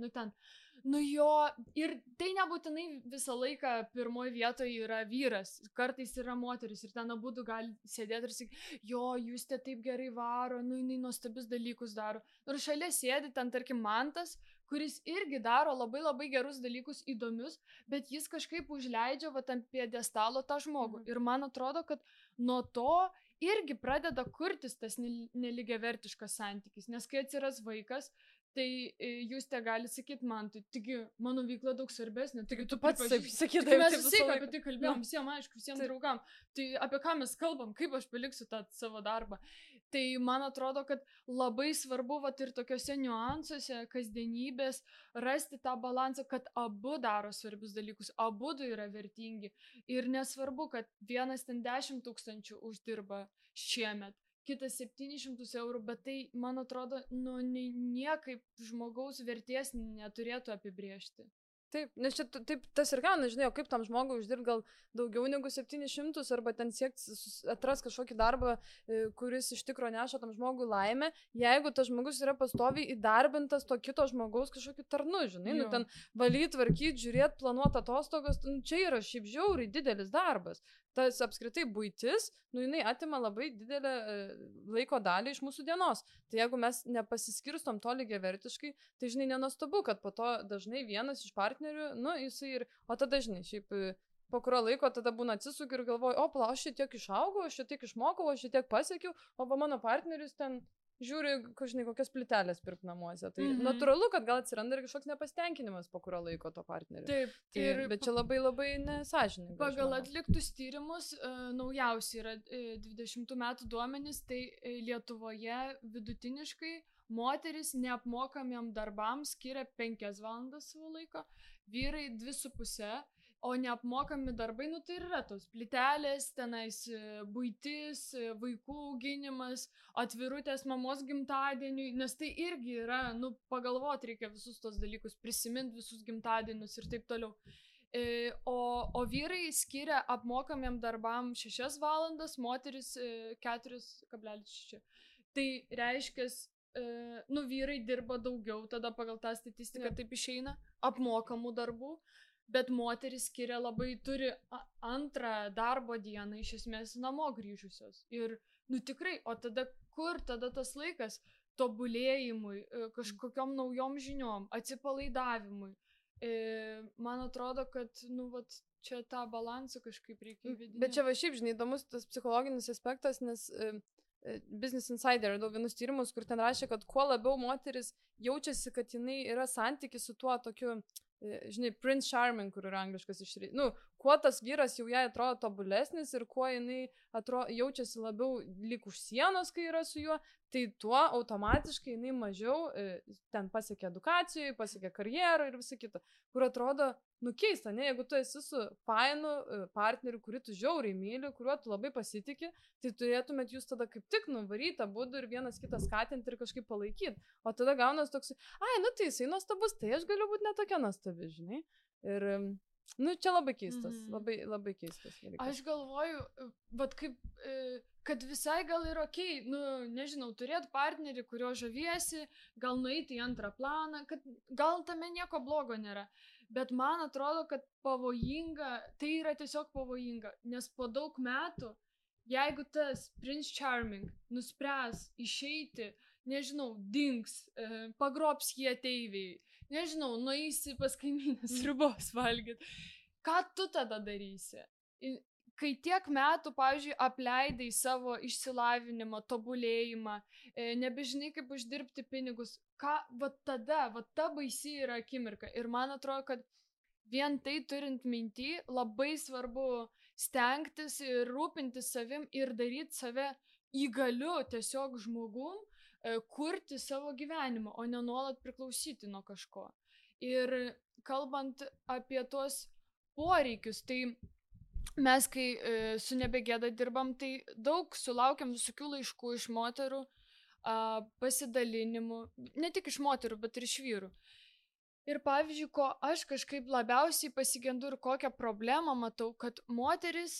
jo, ir tai nebūtinai visą laiką pirmoje vietoje yra vyras, kartais yra moteris ir ten abudu gali sėdėti ir sakyti, jo, jūs te taip gerai varo, jinai nuostabius dalykus daro. Ir šalia sėdi ten, tarkim, Mantas, kuris irgi daro labai labai gerus dalykus įdomius, bet jis kažkaip užleidžia ant pjedestalo tą žmogų. Ir man atrodo, kad nuo to irgi pradeda kurtis tas nelygiavertiškas santykis, nes kai atsiras vaikas, tai jūs te gali sakyti man, taigi mano veikla daug svarbesnė, taigi tu pats sakydavai, mes visi apie tai kalbėjom, visiems aišku, visiems draugam, tai apie ką mes kalbam, kaip aš paliksiu tą savo darbą. Tai man atrodo, kad labai svarbu ir tokiuose niuansuose, kasdienybės, rasti tą balansą, kad abu daro svarbius dalykus, abu yra vertingi ir nesvarbu, kad vienas ten 10 000 uždirba šiemet, kitas 700 eurų, bet tai, man atrodo, niekaip žmogaus vertės neturėtų apibrėžti. Taip, nes čia taip tas ir gauna, žinai, o kaip tam žmogui uždirbti gal daugiau negu 700 arba ten siekti atras kažkokį darbą, kuris iš tikro neša tam žmogui laimę, jeigu tas žmogus yra pastoviai įdarbintas to kito žmogaus kažkokiu tarnu, žinai, nu ten valyti, tvarkyti, žiūrėti, planuoti atostogas, nu, čia yra šiaip žiauriai didelis darbas. Tas apskritai buitis, nu jinai atima labai didelę laiko dalį iš mūsų dienos. Tai jeigu mes nepasiskirstom to lygiavertiškai, tai žinai, nenuostabu, kad po to dažnai vienas iš partnerių, nu jisai ir, o tada žinai, šiaip po kurio laiko tada būna atsisukiu ir galvoju, o pala, aš šitiek išaugau, aš šitiek išmokau, aš šitiek pasiekiau, o va mano partneris ten žiūri, žinai, kokias plytelės pirkti namuose. Tai natūralu, kad gal atsiranda ir kažkoks nepasitenkinimas po kurio laiko to partnerio. Taip. Tai, bet čia labai labai nesąžininga. Pagal atliktus tyrimus, naujausi yra 20 metų duomenys, tai Lietuvoje vidutiniškai moteris neapmokamiem darbams skiria 5 valandas savo laiko, vyrai 2,5. O neapmokami darbai, nu tai yra tos plytelės, tenais buitis, vaikų auginimas, atvirutės mamos gimtadieniui, nes tai irgi yra, nu pagalvoti reikia visus tos dalykus, prisiminti visus gimtadienius ir taip toliau. O vyrai skiria apmokamiem darbam 6 valandas, moteris 4,6. Tai reiškia, nu vyrai dirba daugiau, tada pagal tą statistiką taip išeina, apmokamų darbų. Bet moteris skiria labai, turi antrą darbo dieną iš esmės namo grįžusios. Ir, nu tikrai, o tada kur tada tas laikas tobulėjimui, kažkokiom naujom žiniom, atsipalaidavimui. Man atrodo, kad, nu, vat, čia tą balansą kažkaip reikia įvedinėti. Bet čia va šiaip, žinai, įdomus tas psichologinis aspektas, nes Business Insider radau vienus tyrimus, kur ten rašė, kad kuo labiau moteris jaučiasi, kad jinai yra santykis su tuo tokiu, žinai, Prince Charming, kur yra angliškas išreikštas. Nu, kuo tas vyras jau jai atrodo tobulesnis ir kuo jinai jaučiasi labiau lyg už sienos, kai yra su juo, tai tuo automatiškai jinai mažiau ten pasiekia edukacijoje, pasiekia karjerą ir visą kitą. Kur atrodo, nu keista, ne, jeigu tu esi su fainu partneriu, kurį tu žiauriai myli, kuriuo tu labai pasitiki, tai turėtumėt jūs tada kaip tik nuvaryti abudu ir vienas kitą skatinti ir kažkaip palaikyti. O tada gaunas toks, ai, nu tai jisai nuostabus, tai aš galiu būti netokia nuostabi, žinai. Ir, nu, čia labai keistas, labai keistas. Aš galvoju, vat kaip, kad visai gal ir okei, nu, nežinau, turėti partnerį, kurio žaviesi, gal nueiti į antrą planą, kad gal tame nieko blogo nėra. Bet man atrodo, kad pavojinga, tai yra tiesiog pavojinga, nes po daug metų, jeigu tas Prince Charming nuspręs išeiti, nežinau, dings, pagrobs jį ateiviai, nežinau, nueisi pas kaimynės sriubos valgyti, ką tu tada darysi? Kai tiek metų, pavyzdžiui, apleidai savo išsilavinimą, tobulėjimą, nebežinai, kaip uždirbti pinigus, va tada, va ta baisi yra akimirka. Ir man atrodo, kad vien tai turint minty, labai svarbu stengtis ir rūpintis savim ir daryti save įgaliu tiesiog žmogum, kurti savo gyvenimą, o ne nuolat priklausyti nuo kažko. Ir kalbant apie tuos poreikius, tai mes, kai su Nebegėda dirbam, tai daug sulaukiam visokių laiškų iš moterų, pasidalinimų, ne tik iš moterų, bet ir iš vyrų. Ir pavyzdžiui, ko aš kažkaip labiausiai pasigendu ir kokią problemą matau, kad moteris,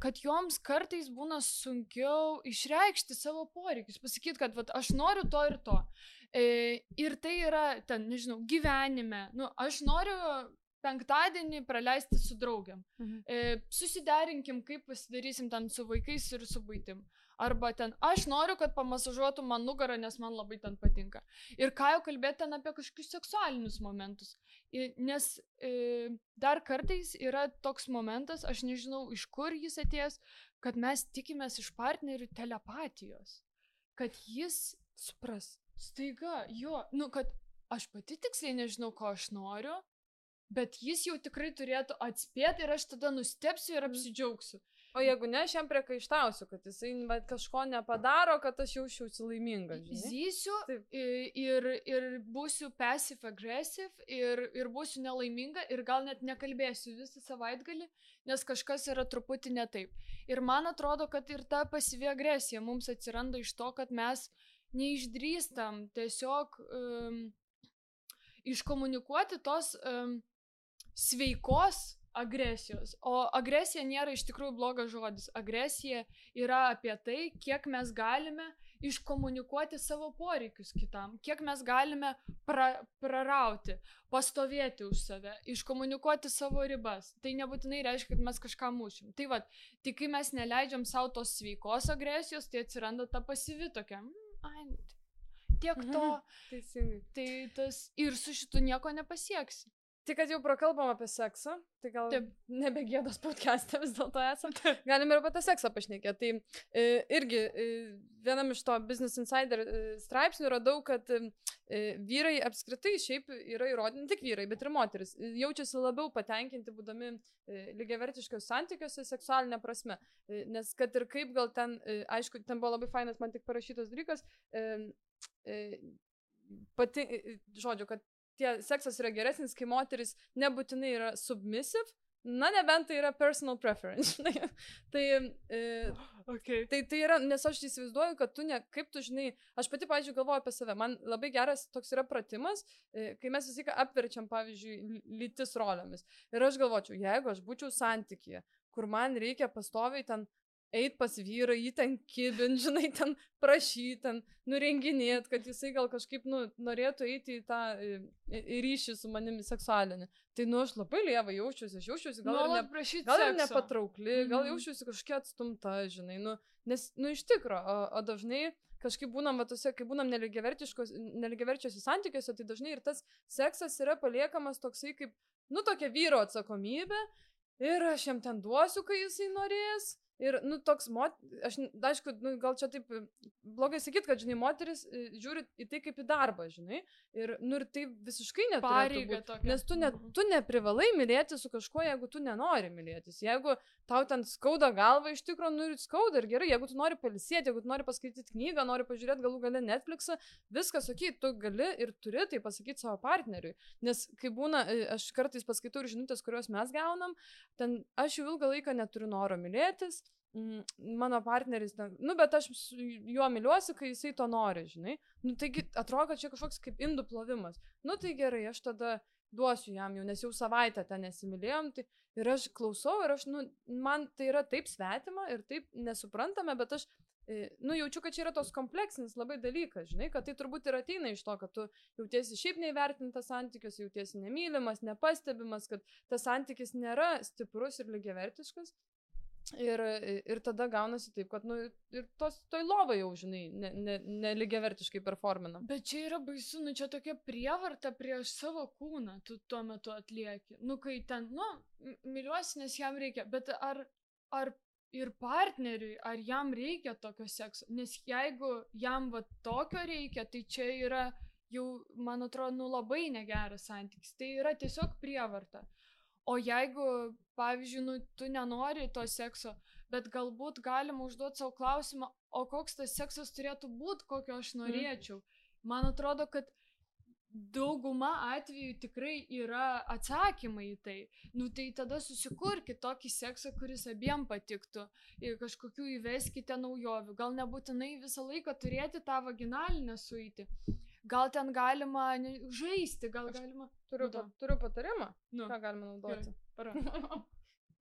kad joms kartais būna sunkiau išreikšti savo poreikius, pasakyti, kad vat, aš noriu to ir to. Ir tai yra, ten, nežinau, gyvenime, nu, aš noriu penktadienį praleisti su draugiam. Susiderinkim, kaip pasidarysim ten su vaikais ir su buitim. Arba ten, aš noriu, kad pamasažuotų man nugarą, nes man labai ten patinka. Ir ką jau kalbėti ten apie kažkokius seksualinius momentus. Nes dar kartais yra toks momentas, aš nežinau, iš kur jis atėjęs, kad mes tikimės iš partnerių telepatijos. Kad jis supras. Staiga, jo, nu, kad aš pati tiksliai nežinau, ko aš noriu, bet jis jau tikrai turėtų atspėti ir aš tada nustepsiu ir apsidžiaugsiu. O jeigu ne, aš jam priekaištausiu, kad jisai kažko nepadaro, kad aš jaučiausi laiminga. Zysiu ir būsiu passive-aggressive ir būsiu nelaiminga ir gal net nekalbėsiu visą savaitgalį, nes kažkas yra truputį ne taip. Ir man atrodo, kad ir ta pasyvi agresija mums atsiranda iš to, kad mes neišdrįstam tiesiog iškomunikuoti tos sveikos agresijos. O agresija nėra iš tikrųjų blogas žodis. Agresija yra apie tai, kiek mes galime iškomunikuoti savo poreikius kitam, kiek mes galime prarauti, pastovėti už save, iškomunikuoti savo ribas. Tai nebūtinai reiškia, kad mes kažką mušim. Tai tai kai mes neleidžiam savo tos sveikos agresijos, tai atsiranda ta pasyvi tokia, tiek to. Teisingai. Tai tas ir su šitu nieko nepasieksi. Tai kad jau prakalbam apie seksą, tai gal nebegėdos podcast'e vis dėlto esam, galim ir apie tą seksą pašnekėti. Tai irgi vienam iš to Business Insider straipsnių radau, kad vyrai apskritai šiaip yra įrodyti, ne tik vyrai, bet ir moteris, jaučiasi labiau patenkinti būdami lygiavertiškos santykiuose seksualinė prasme. Nes kad ir kaip gal ten, aišku, ten buvo labai fainas man tik parašytas dalykas, žodžiu, kad seksas yra geresnis, kai moteris nebūtinai yra submissive, na nebent tai yra personal preference. tai yra, nes aš įsivaizduoju, kad kaip tu žinai, aš pati, pavyzdžiui, galvoju apie save, man labai geras toks yra pratimas, kai mes visą laiką apverčiam, pavyzdžiui, lytis rolėmis. Ir aš galvočiau, jeigu aš būčiau santykyje, kur man reikia pastoviai ten eit pas vyrą, jį ten kibint, žinai, ten prašyti, ten nurenginėt, kad jisai gal kažkaip, norėtų eiti į tą ryšį su manimi seksualinį. Tai, aš labai lieva jaučiuosi, gal ir nepatraukli, gal jaučiuosi kažkiek atstumta, žinai, nes, iš tikro, o dažnai kažkaip būnam, kai būnam nelygiaverčiuose santykiuose, tai dažnai ir tas seksas yra paliekamas toksai kaip, tokia vyro atsakomybė ir aš jam ten duosiu, kai jisai norės. Ir, toks, aš, aišku, gal čia taip blogai sakyt, kad, žinai, moteris žiūri į tai kaip į darbą, žinai, ir tai visiškai neturėtų būti, nes tu neprivalai mylėti su kažkuo, jeigu tu nenori mylėtis. Jeigu tau ten skauda galva, iš tikrųjų, ir skauda ir gerai, jeigu tu nori pailsėti, jeigu tu nori paskaityti knygą, nori pažiūrėti galų gale Netflixą, viskas, tu gali ir turi tai pasakyti savo partneriui. Nes kai būna, aš kartais paskaitau ir žinutės, kuriuos mes gaunam, ten aš jau ilgą laiką neturiu noro mylėtis, mano partneris, bet aš juo myliuosi, kai jisai to nori, žinai. Taigi atrodo, kad čia kažkoks kaip indų plovimas. Tai gerai, aš tada duosiu jam jau, nes jau savaitę ten nesimylėjom, tai ir aš klausau ir aš, man tai yra taip svetima ir taip nesuprantame, bet aš, jaučiu, kad čia yra tos kompleksinis labai dalykas, žinai, kad tai turbūt ir ateina iš to, kad tu jautiesi šiaip neįvertintas santykius, jautiesi nemylimas, nepastebimas, kad tas santykis nėra stiprus ir lygiavertiškas. Ir tada gaunasi taip, kad, ir toj lovai jau, žinai, nelygiavertiškai performinam. Bet čia yra baisu, čia tokia prievarta prieš savo kūną, tu tuo metu atlieki. Kai ten, myliuosi, nes jam reikia, bet ar ir partneriui, ar jam reikia tokio sekso? Nes jeigu jam tokio reikia, tai čia yra jau, man atrodo, labai negeras santykis. Tai yra tiesiog prievarta. O jeigu, pavyzdžiui, tu nenori to sekso, bet galbūt galima užduoti savo klausimą, o koks tas seksas turėtų būti, kokio aš norėčiau. Man atrodo, kad dauguma atvejų tikrai yra atsakymai į tai. Tai tada susikurkit tokį seksą, kuris abiem patiktų. Ir kažkokių įveskite naujovių. Gal nebūtinai visą laiką turėti tą vaginalinę suitį. Gal ten galima žaisti, gal galima... Turiu patarimą, ką galima naudoti.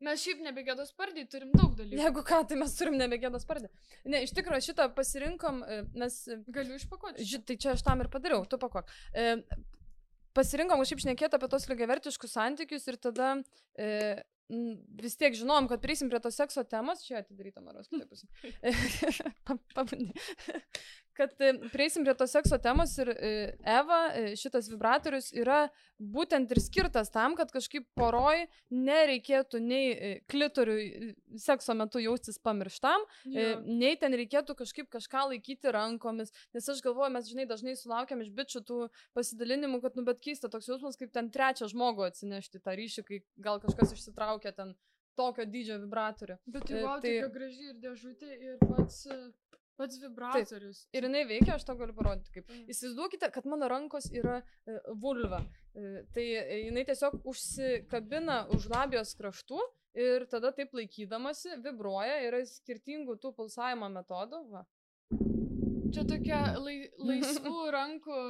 Mes šiaip nebegėdos spardį turim daug dalykų. Jeigu ką, tai mes turim nebegėdos spardį. Ne, iš tikrųjų šitą pasirinkom, nes... Galiu išpakuoti. Tai čia aš tam ir padariau, tu pakuok. Pasirinkom kažkaip šnekėti apie tos lygiavertiškus santykius ir tada vis tiek žinom, kad prieisim prie to sekso temos. Čia atidaryta Maros kitaipus. Pabandė. Kad prieisim prie to sekso temos ir Eva, šitas vibratorius yra būtent ir skirtas tam, kad kažkaip poroj nereikėtų nei klitoriui sekso metu jaustis pamirštam, nei ten reikėtų kažką laikyti rankomis, nes aš galvoju, mes dažnai sulaukiam iš bičių tų pasidalinimų, kad bet keista toks jausmas, kaip ten trečią žmogų atsinešti tą ryšį, kai gal kažkas išsitraukia ten tokio dydžio vibratorių. Bet tai tokia graži ir dėžutė ir pats vibratorius. Taip. Ir jinai veikia, aš to galiu parodyti kaip. Įsivaizduokite, kad mano rankos yra vulva. Tai jinai tiesiog užsikabina už labijos kraštų ir tada taip laikydamasi vibruoja, yra skirtingų tų pulsavimo metodų. Va. Čia tokia laisvų rankų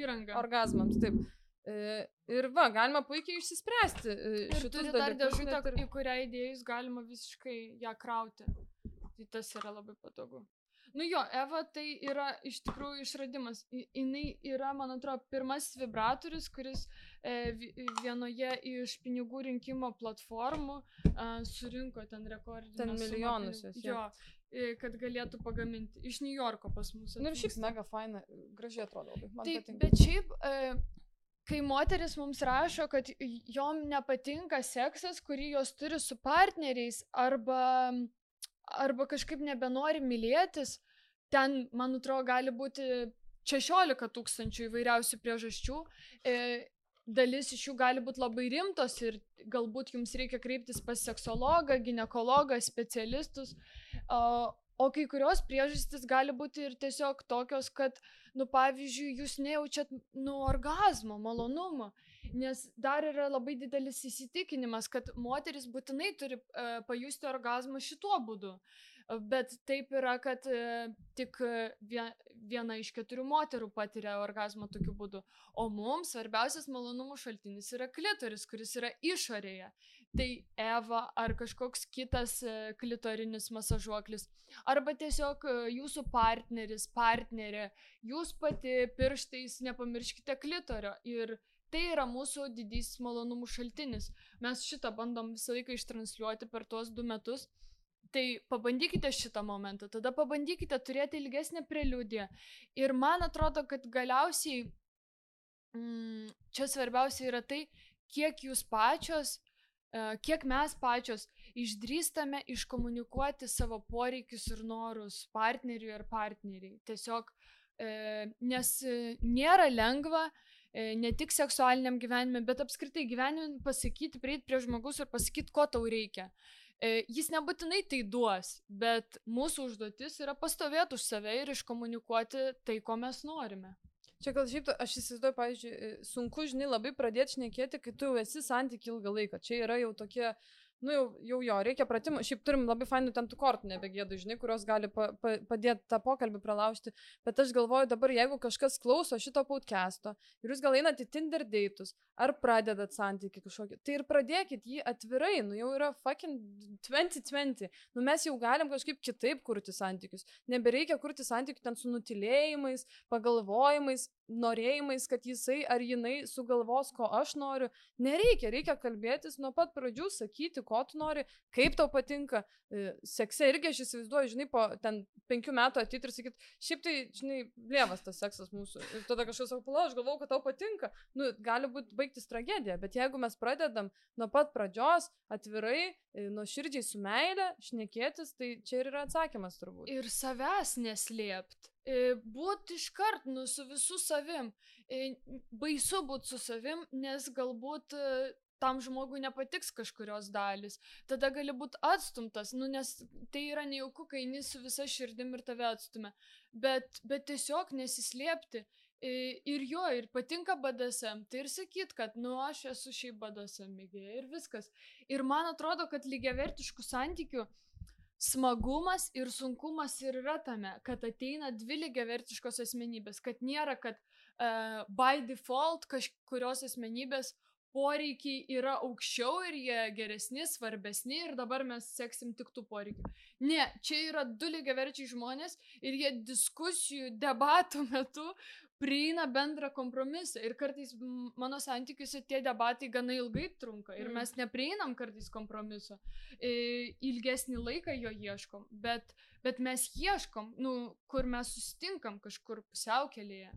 įranga. Orgazmams, taip. Ir va, galima puikiai išsispręsti šitus turi dar dėžutę, į kurią įdėjus galima visiškai ją krauti. Tai tas yra labai patogu. Nu jo, Eva tai yra iš tikrųjų išradimas. Jinai yra, man atrodo, pirmasis vibratorius, kuris vienoje iš pinigų rinkimo platformų surinko ten rekordinę ten milijonus. Jo, kad galėtų pagaminti. Iš New Yorko pas mus. Nu ir šiaip mega faina, gražiai atrodo labai. Man taip, patinka. Bet šiaip, kai moteris mums rašo, kad jom nepatinka seksas, kurį jos turi su partneriais, arba kažkaip nebenori mylėtis, ten, man atrodo, gali būti 16 000 įvairiausių priežasčių. Dalis iš jų gali būti labai rimtos ir galbūt jums reikia kreiptis pas seksologą, ginekologą, specialistus. O kai kurios priežastys gali būti ir tiesiog tokios, kad, pavyzdžiui, jūs nejaučiat, orgazmo, malonumo. Nes dar yra labai didelis įsitikinimas, kad moteris būtinai turi pajusti orgazmą šituo būdu. Bet taip yra, kad tik viena iš 4 moterų patiria orgazmą tokiu būdu. O mums svarbiausias malonumų šaltinis yra klitoris, kuris yra išorėje. Tai Eva ar kažkoks kitas klitorinis masažuoklis. Arba tiesiog jūsų partneris, partnerė, jūs pati pirštais nepamirškite klitorio. Ir tai yra mūsų didysis malonumų šaltinis. Mes šitą bandom visą laiką ištransliuoti per tuos 2 metus. Tai pabandykite šitą momentą, tada pabandykite turėti ilgesnę preliudiją. Ir man atrodo, kad galiausiai čia svarbiausia yra tai, kiek jūs pačios, kiek mes pačios išdrįstame iškomunikuoti savo poreikius ir norus partneriui ar partneriai. Tiesiog, nes nėra lengva ne tik seksualiniam gyvenime, bet apskritai gyvenime pasakyti, prieiti prie žmogus ir pasakyti, ko tau reikia. Jis nebūtinai tai duos, bet mūsų užduotis yra pastovėti už save ir iškomunikuoti tai, ko mes norime. Čia gal šiaip, aš įsivaizduoju, pavyzdžiui, sunku, žinai, labai pradėti šnekėti, kai tu jau esi santykiai ilgą laiką. Čia yra jau tokie, jau reikia pratimų. Šiaip turim labai fainų ten tų kortų nebegėdų, žinai, kurios gali padėti tą pokalbį pralaužti. Bet aš galvoju dabar, jeigu kažkas klauso šito podcast'o ir jūs gal einat į Tinder date'us, ar pradedat santykį kažkokį, tai ir pradėkit jį atvirai, jau yra fucking 2020. Mes jau galim kažkaip kitaip kurti santykius. Nebereikia kurti santykių ten su nutilėjimais, pagalvojimais, norėjimais, kad jisai ar jinai sugalvos, ko aš noriu. Reikia kalbėtis nuo pat pradžių, sakyti, ko tu nori, kaip tau patinka. Sekse irgi aš įsivaizduoju, žinai, po ten 5 metų ateit ir sakyt, šiaip tai, žinai, lievas tas seksas mūsų. Ir tada kažkas sako, aš galvau, kad tau patinka. Gali būti baigtis tragedija, bet jeigu mes pradedam nuo pat pradžios, atvirai, nuoširdžiai su meile, šnekėtis, tai čia ir yra atsakymas turbūt. Ir savęs neslėpt. Būt iškart, su visų savim. Baisu būt su savim, nes galbūt tam žmogui nepatiks kažkurios dalis. Tada gali būti atstumtas, nes tai yra nejauku, kai eini su visa širdim ir tave atstumia. Bet tiesiog nesislėpti. Ir patinka BDSM, tai ir sakyt, kad aš esu šiaip BDSM mėgėja ir viskas. Ir man atrodo, kad lygiavertiškų santykių smagumas ir sunkumas ir yra tame, kad ateina 2 lygiavertiškos asmenybės, kad nėra, kad by default kažkurios asmenybės poreikiai yra aukščiau ir jie geresni, svarbesni ir dabar mes seksim tik tų poreikių. Ne, čia yra 2 lygiaverčiai žmonės ir jie diskusijų, debatų metu prieina bendrą kompromisą. Ir kartais mano santykiuose tie debatai gana ilgai trunka ir mes neprieinam kartais kompromiso. Ilgesnį laiką jo ieškom, bet mes ieškom, kur mes susitinkam kažkur pusiaukelėje.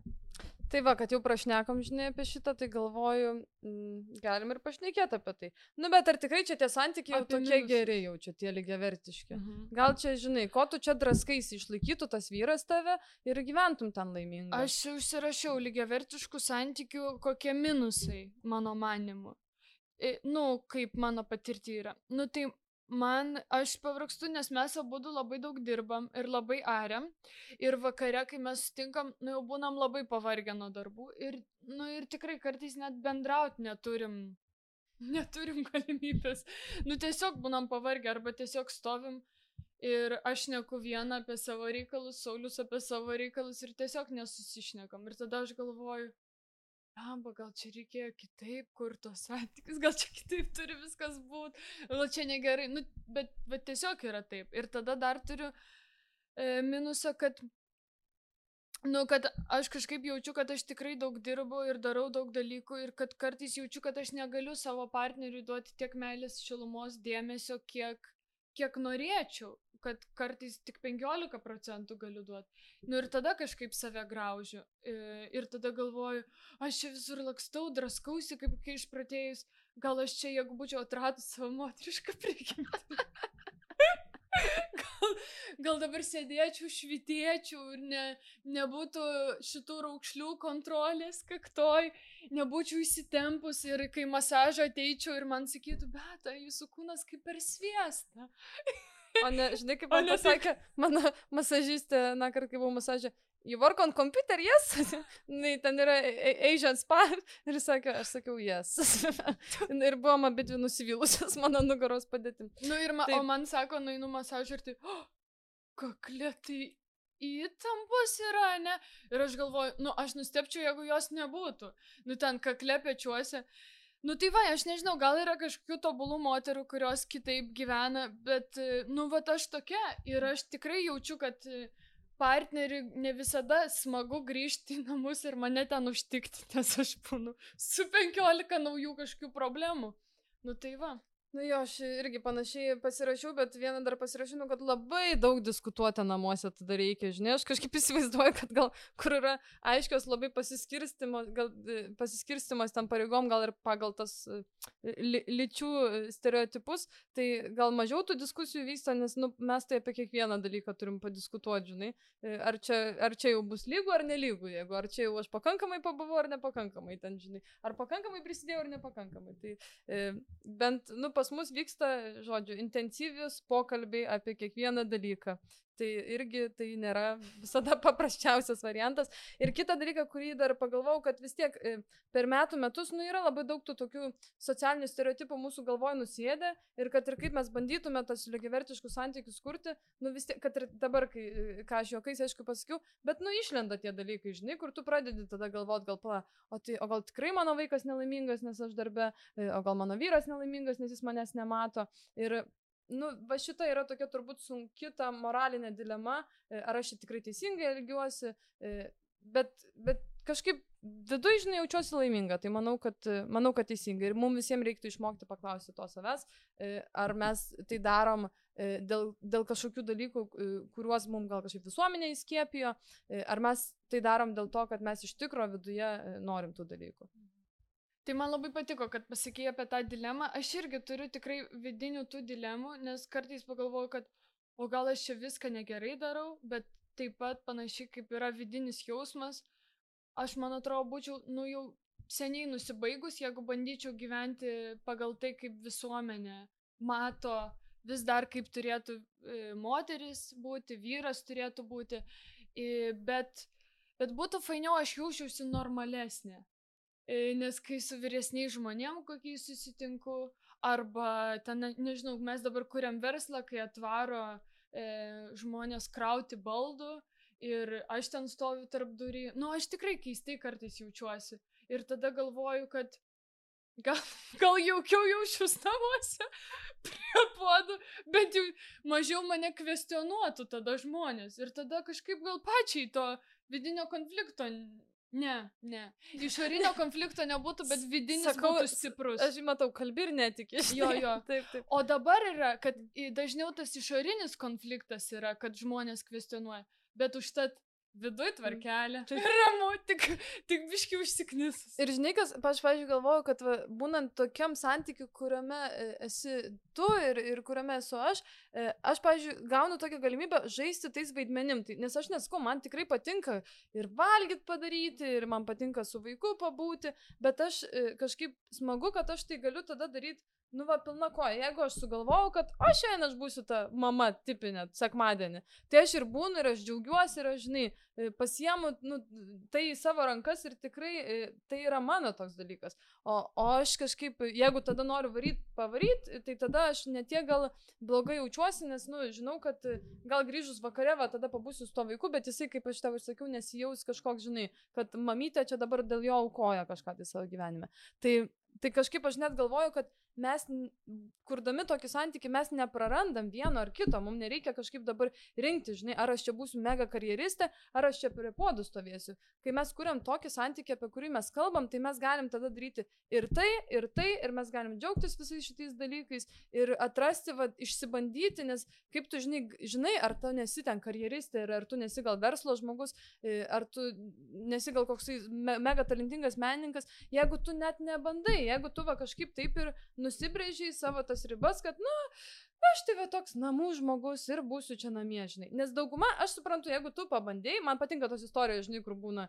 Tai va, kad jau prašnekam, žinai, apie šitą, tai galvoju, galim ir pašnekėti apie tai. Bet ar tikrai čia tie santykiai jau tokie geri, jau čia tie lygiavertiški? Gal čia, žinai, ko tu čia draskaisi, išlaikytų tas vyras tave ir gyventum ten laimingai? Aš užsirašiau lygiavertiškų santykių kokie minusai, mano manimu. Kaip mano patirti yra. Tai aš pavargstu, nes mes abudu labai daug dirbam ir labai ariam. Ir vakare, kai mes sutinkam, jau būnam labai pavargę nuo darbų. Ir tikrai kartais net bendrauti neturim galimybės. Tiesiog būnam pavargę arba tiesiog stovim. Ir aš šneku vieną apie savo reikalus, Saulius apie savo reikalus ir tiesiog nesusišnekam. Ir tada aš galvoju, amba, gal čia reikėjo kitaip kur tos santykius, gal čia kitaip turi viskas būti, gal čia negerai, nu, bet tiesiog yra taip. Ir tada dar turiu minusą, kad aš kažkaip jaučiu, kad aš tikrai daug dirbu ir darau daug dalykų ir kad kartais jaučiu, kad aš negaliu savo partneriui duoti tiek meilės, šilumos, dėmesio, kiek norėčiau, kad kartais tik 15% galiu duoti. Nu ir tada kažkaip save graužiu ir tada galvoju, aš čia visur lakstau, draskausi, kaip kai išpratėjus, gal aš čia, jeigu būčiau atradus savo moterišką prigimtį. Gal dabar sėdėčiau, švitėčiau ir nebūtų šitų raukšlių kontrolės kaktoj, nebūčiau įsitempus ir kai masažą ateičiau ir man sakytų, bet jūsų kūnas kaip per sviestą. O ne, žinai, kaip man pasakė, mano masažistė, kart kai buvau masažė, you work on computer, yes? Ten yra Asian spa. Ir sakė, aš sakiau, yes. Ir buvom abidvi nusivylusios mano nugaros padėtim. Nu ir o man sako, nueinu masažą ir tai, kaklė, tai įtampos yra, ne? Ir aš galvoju, aš nustepčiau, jeigu jos nebūtų. Ten kaklė pečiuose. Nu tai va, aš nežinau, gal yra kažkokių tobulų moterų, kurios kitaip gyvena, bet, aš tokia ir aš tikrai jaučiu, kad partneriui ne visada smagu grįžti į namus ir mane ten užtikti, nes aš būnu su 15 naujų kažkokių problemų. Nu tai va. Nu jo, aš irgi panašiai pasirašiau, bet vieną dar pasirašiau, kad labai daug diskutuoti namuose tada reikia, žinai, aš kažkaip įsivaizduoju, kad gal, kur yra aiškios labai pasiskirstimas tam pareigom, gal ir pagal tas lyčių stereotipus, tai gal mažiau tų diskusijų vyksta, nes mes tai apie kiekvieną dalyką turim padiskutuoti, žinai, ar čia jau bus lygu ar nelygu, jeigu ar čia jau aš pakankamai pabuvau ar nepakankamai ten, žinai, ar pakankamai prisidėjau ar nepakankamai, tai bent, pas mus vyksta, žodžiu, intensyvius pokalbiai apie kiekvieną dalyką. Tai irgi tai nėra visada paprasčiausias variantas. Ir kitą dalyką, kurį dar pagalvojau, kad vis tiek per metus, yra labai daug tų tokių socialinių stereotipų mūsų galvoje nusėdę ir kad ir kaip mes bandytume tas lygiavertiškus santykius kurti, vis tiek, kad ir dabar, ką aš juokais, aišku, pasakiau, bet išlenda tie dalykai, žinai, kur tu pradedi tada galvoti, o gal tikrai mano vaikas nelaimingas, nes aš darbe, o gal mano vyras nelaimingas, nes jis manęs nemato. Ir va šita yra tokia turbūt sunki ta moralinė dilema, ar aš tikrai teisingai elgiuosi, bet kažkaip viduje, žinai, jaučiuosi laiminga, tai manau, kad teisingai. Ir mums visiems reiktų išmokti paklausti to savęs, ar mes tai darom dėl kažkokių dalykų, kuriuos mums gal kažkaip visuomenė įskiepijo, ar mes tai darom dėl to, kad mes iš tikro viduje norim tų dalykų. Tai man labai patiko, kad pasakėjai apie tą dilemą. Aš irgi turiu tikrai vidinių tų dilemų, nes kartais pagalvoju, kad o gal aš čia viską negerai darau, bet taip pat panašiai kaip yra vidinis jausmas, aš, man atrodo, būčiau, jau seniai nusibaigus, jeigu bandyčiau gyventi pagal tai, kaip visuomenė mato vis dar kaip turėtų moteris būti, vyras turėtų būti, bet būtų fainiau, aš jaučiausi normalesnė. Nes kai su vyresniais žmonėm kokiais susitinku, arba ten, nežinau, mes dabar kuriam verslą, kai atvaro žmonės krauti baldų ir aš ten stoviu tarp durį, aš tikrai keistai kartais jaučiuosi. Ir tada galvoju, kad gal jaukiau jaučius namuose prie puodų, bet jau mažiau mane kvestionuotų tada žmonės. Ir tada kažkaip gal pačiai to vidinio konflikto. Ne. Išorinio konflikto nebūtų, bet vidinis būtų stiprus. Aš matau, kalbi ir netiki. Jo. Taip. O dabar yra, kad dažniau tas išorinis konfliktas yra, kad žmonės kvestionuoja. Bet užtat viduj tvarkelė. Ramu, tik biški užsiknisus. Ir žinai, kas, aš, pavyzdžiui, galvoju, kad būnant tokiam santykiu, kuriame esi tu ir kuriame esu aš, pavyzdžiui, gaunu tokią galimybę žaisti tais vaidmenim. Nes aš nesakau, man tikrai patinka ir valgyt padaryti, ir man patinka su vaiku pabūti, bet aš kažkaip smagu, kad aš tai galiu tada daryti nu va, pilna koja. Jeigu aš sugalvojau, kad aš šiandien aš būsiu ta mama tipinė, sekmadienį, tai aš ir būnu, ir aš džiaugiuosi, ir aš, žinai, pasiemu, nu, tai į savo rankas ir tikrai tai yra mano toks dalykas. O aš kažkaip, jeigu tada noriu pavaryti, tai tada aš netiek gal blogai jaučiuosi, nes, nu, žinau, kad gal grįžus vakare, va, tada pabūsiu su to vaiku, bet jisai, kaip aš tau ir sakiau, nesijaus kažkoks, žinai, kad mamytė čia dabar dėl jo aukoja kažką tai savo gyvenime. Tai kažkaip aš net galvoju, kad mes, kurdami tokį santykį, mes neprarandam vieno ar kito, mums nereikia kažkaip dabar rinkti, žinai, ar aš čia būsiu mega karjeristė, ar aš čia prie podų stovėsiu. Kai mes kuriam tokį santykį, apie kurį mes kalbam, tai mes galim tada daryti ir tai, ir mes galim džiaugtis visais šitais dalykais ir atrasti, va, išsibandyti, nes kaip tu žinai, ar tu nesi ten karjeristė, ar tu nesi gal verslo žmogus, ar tu nesi gal koksai mega talentingas menininkas, jeigu tu net nebandai, jeigu tu va kažkaip taip ir nusibrėžiai savo tas ribas, kad, nu, aš tai va toks namų žmogus ir būsiu čia namie, žinai. Nes dauguma, aš suprantu, jeigu tu pabandėjai, man patinka tos istorijos, žinai, kur būna,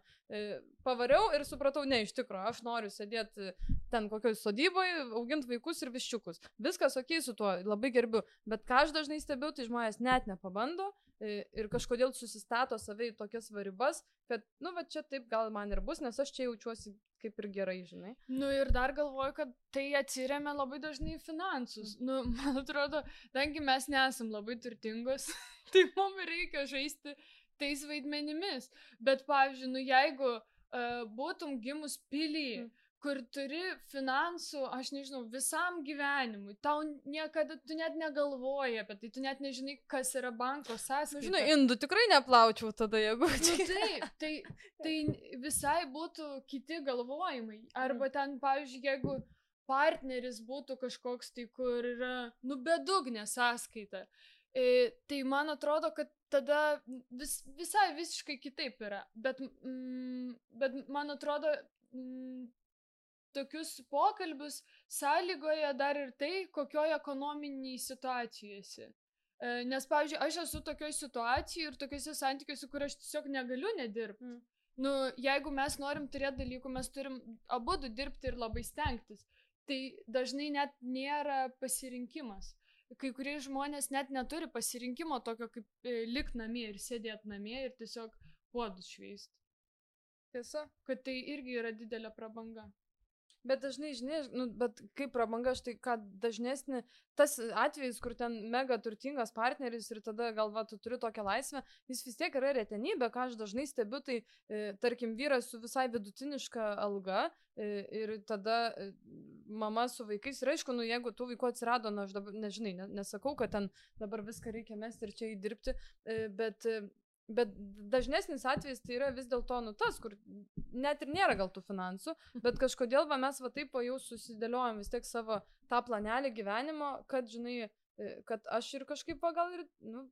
pavariau ir supratau, ne, iš tikrųjų, aš noriu sėdėti ten kokioj sodyboje, auginti vaikus ir viščiukus. Viskas okei su tuo, labai gerbiu. Bet ką aš dažnai stebiu, tai žmonės net nepabando ir kažkodėl susistato save į tokias ribas, kad, nu, va čia taip gal man ir bus, nes aš čia jaučiuosi kaip ir gerai, žinai. Nu ir dar galvoju, kad tai atsiremia labai dažnai finansus. Nu, man atrodo, tangi mes nesam labai turtingos, tai mums reikia žaisti tais vaidmenimis. Bet, pavyzdžiui, nu jeigu būtum gimus pily, kur turi finansų, aš nežinau, visam gyvenimui, tau niekada, tu net negalvoji apie tai, tu net nežinai, kas yra banko sąskaita. Žinai, indų tikrai neplaučiau tada, jeigu... Nu, taip, tai visai būtų kiti galvojimai. Arba ten, pavyzdžiui, jeigu partneris būtų kažkoks tai, kur yra, nu, bedugnė sąskaita, tai man atrodo, kad tada visai visiškai kitaip yra. Bet man atrodo... tokius pokalbius sąlygoja dar ir tai, kokioje ekonominiai situacijose. Nes, pavyzdžiui, aš esu tokioje situacijoje ir tokiuose santykiuose, kur aš tiesiog negaliu nedirbti. Nu, jeigu mes norim turėti dalykų, mes turim abudu dirbti ir labai stengtis. Tai dažnai net nėra pasirinkimas. Kai kurie žmonės net neturi pasirinkimo tokio kaip likt namie ir sėdėti namie ir tiesiog puodus šveisti. Tiesa, kad tai irgi yra didelė prabanga. Bet dažnai, žinai, nu, bet kaip prabanga, štai ką dažnesnį, tas atvejis, kur ten mega turtingas partneris ir tada galva tu turi tokią laisvę, jis vis tiek yra retenybė, ką aš dažnai stebiu, tai tarkim vyras su visai vidutiniška alga ir tada mama su vaikais ir aišku, nu jeigu tų vaikų atsirado, na aš dabar, nežinai, nesakau, kad ten dabar viską reikia mesti ir čia įdirbti, bet dažnesnis atvejis tai yra vis dėlto nu tas, kur net ir nėra gal tų finansų, bet kažkodėl va, mes va taip jau susidėliojom vis tiek savo tą planelį gyvenimo, kad, žinai, kad aš ir kažkaip va, gal ir, nu,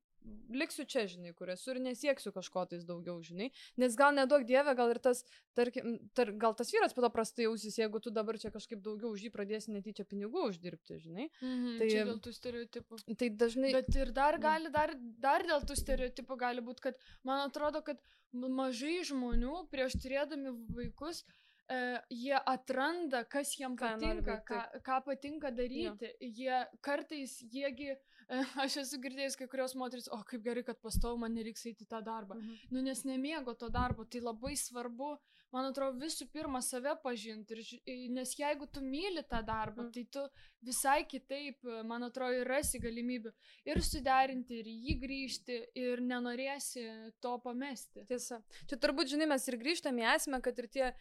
liksiu čia, žinai, kur esu ir nesieksiu kažko tais daugiau, žinai, nes gal neduok dieve, gal ir tas, tarkim, gal tas vyras po to prastai jausis, jeigu tu dabar čia kažkaip daugiau už jį pradėsi netyčia pinigų uždirbti, žinai. Tai čia dėl tų stereotipų. Tai dažnai... Bet ir dar gali, dar dėl tų stereotipų gali būti, kad man atrodo, kad mažai žmonių prieš turėdami vaikus, jie atranda, kas jiem patinka, ką patinka daryti. Jie kartais, jiegi, aš esu girdėjęs kai kurios moteris, o kaip gerai, kad pastovu man nereiks eiti tą darbą. Nu, nes nemėgo to darbo, tai labai svarbu, man atrodo, visų pirma save pažinti, nes jeigu tu myli tą darbą, tai tu visai kitaip, man atrodo, rasi galimybių ir suderinti, ir jį grįžti, ir nenorėsi to pamesti. Tiesa. Čia turbūt, žinai, mes ir grįžtame į esmę, kad ir tie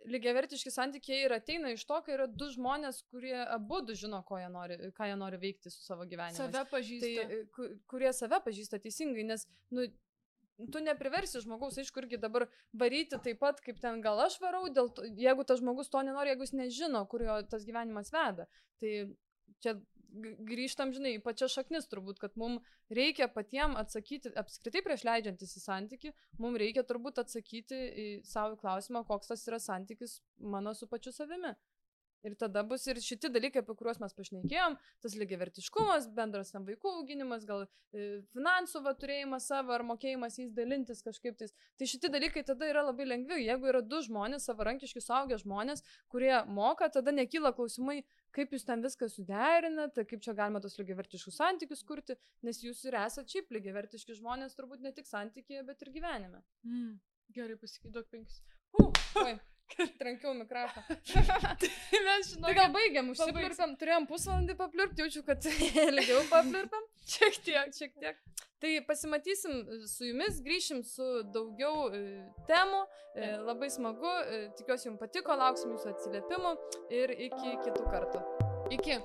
lygiavertiški santykiai ir ateina iš to, kai yra du žmonės, kurie abudu žino, ką jie nori veikti su savo gyvenimu. Save pažįsta. Tai, kurie save pažįsta teisingai, nes, nu, tu nepriversi žmogaus, aišku, irgi dabar varyti taip pat, kaip ten gal aš varau, jeigu tas žmogus to nenori, jeigu jis nežino, kur jo tas gyvenimas veda. Tai čia grįžtam, žinai, pačia šaknis turbūt, kad mums reikia patiem atsakyti, apskritai prieš leidžiantis į santykį, mums reikia turbūt atsakyti į savo klausimą, koks tas yra santykis mano su pačiu savimi. Ir tada bus ir šiti dalykai, apie kuriuos mes pašnekėjom, tas lygiavertiškumas, bendras tam vaikų auginimas, gal finansų turėjimas savo ar mokėjimas jais dalintis kažkaip tais. Tai šitie dalykai tada yra labai lengvi. Jeigu yra du žmonės, savarankiški suaugę žmonės, kurie moka, tada nekyla klausimai, kaip jūs ten viską suderinate, kaip čia galima tos lygiavertiškus santykius kurti, nes jūs ir esate šiaip lygiavertiški žmonės, turbūt ne tik santykėje, bet ir gyvenime. Gerai, pasakyk 5. Oi. Trankiau mikrofą. Tai gal baigiam, užsipliurpam, turėjom pusvalandį papliurpti, jaučiu, kad ilgiau papliurpam. Šiek tiek. Tai pasimatysim su jumis, grįšim su daugiau temų, labai smagu, tikiuosi jums patiko, lauksim jūsų atsiliepimų ir iki kitų kartų. Iki.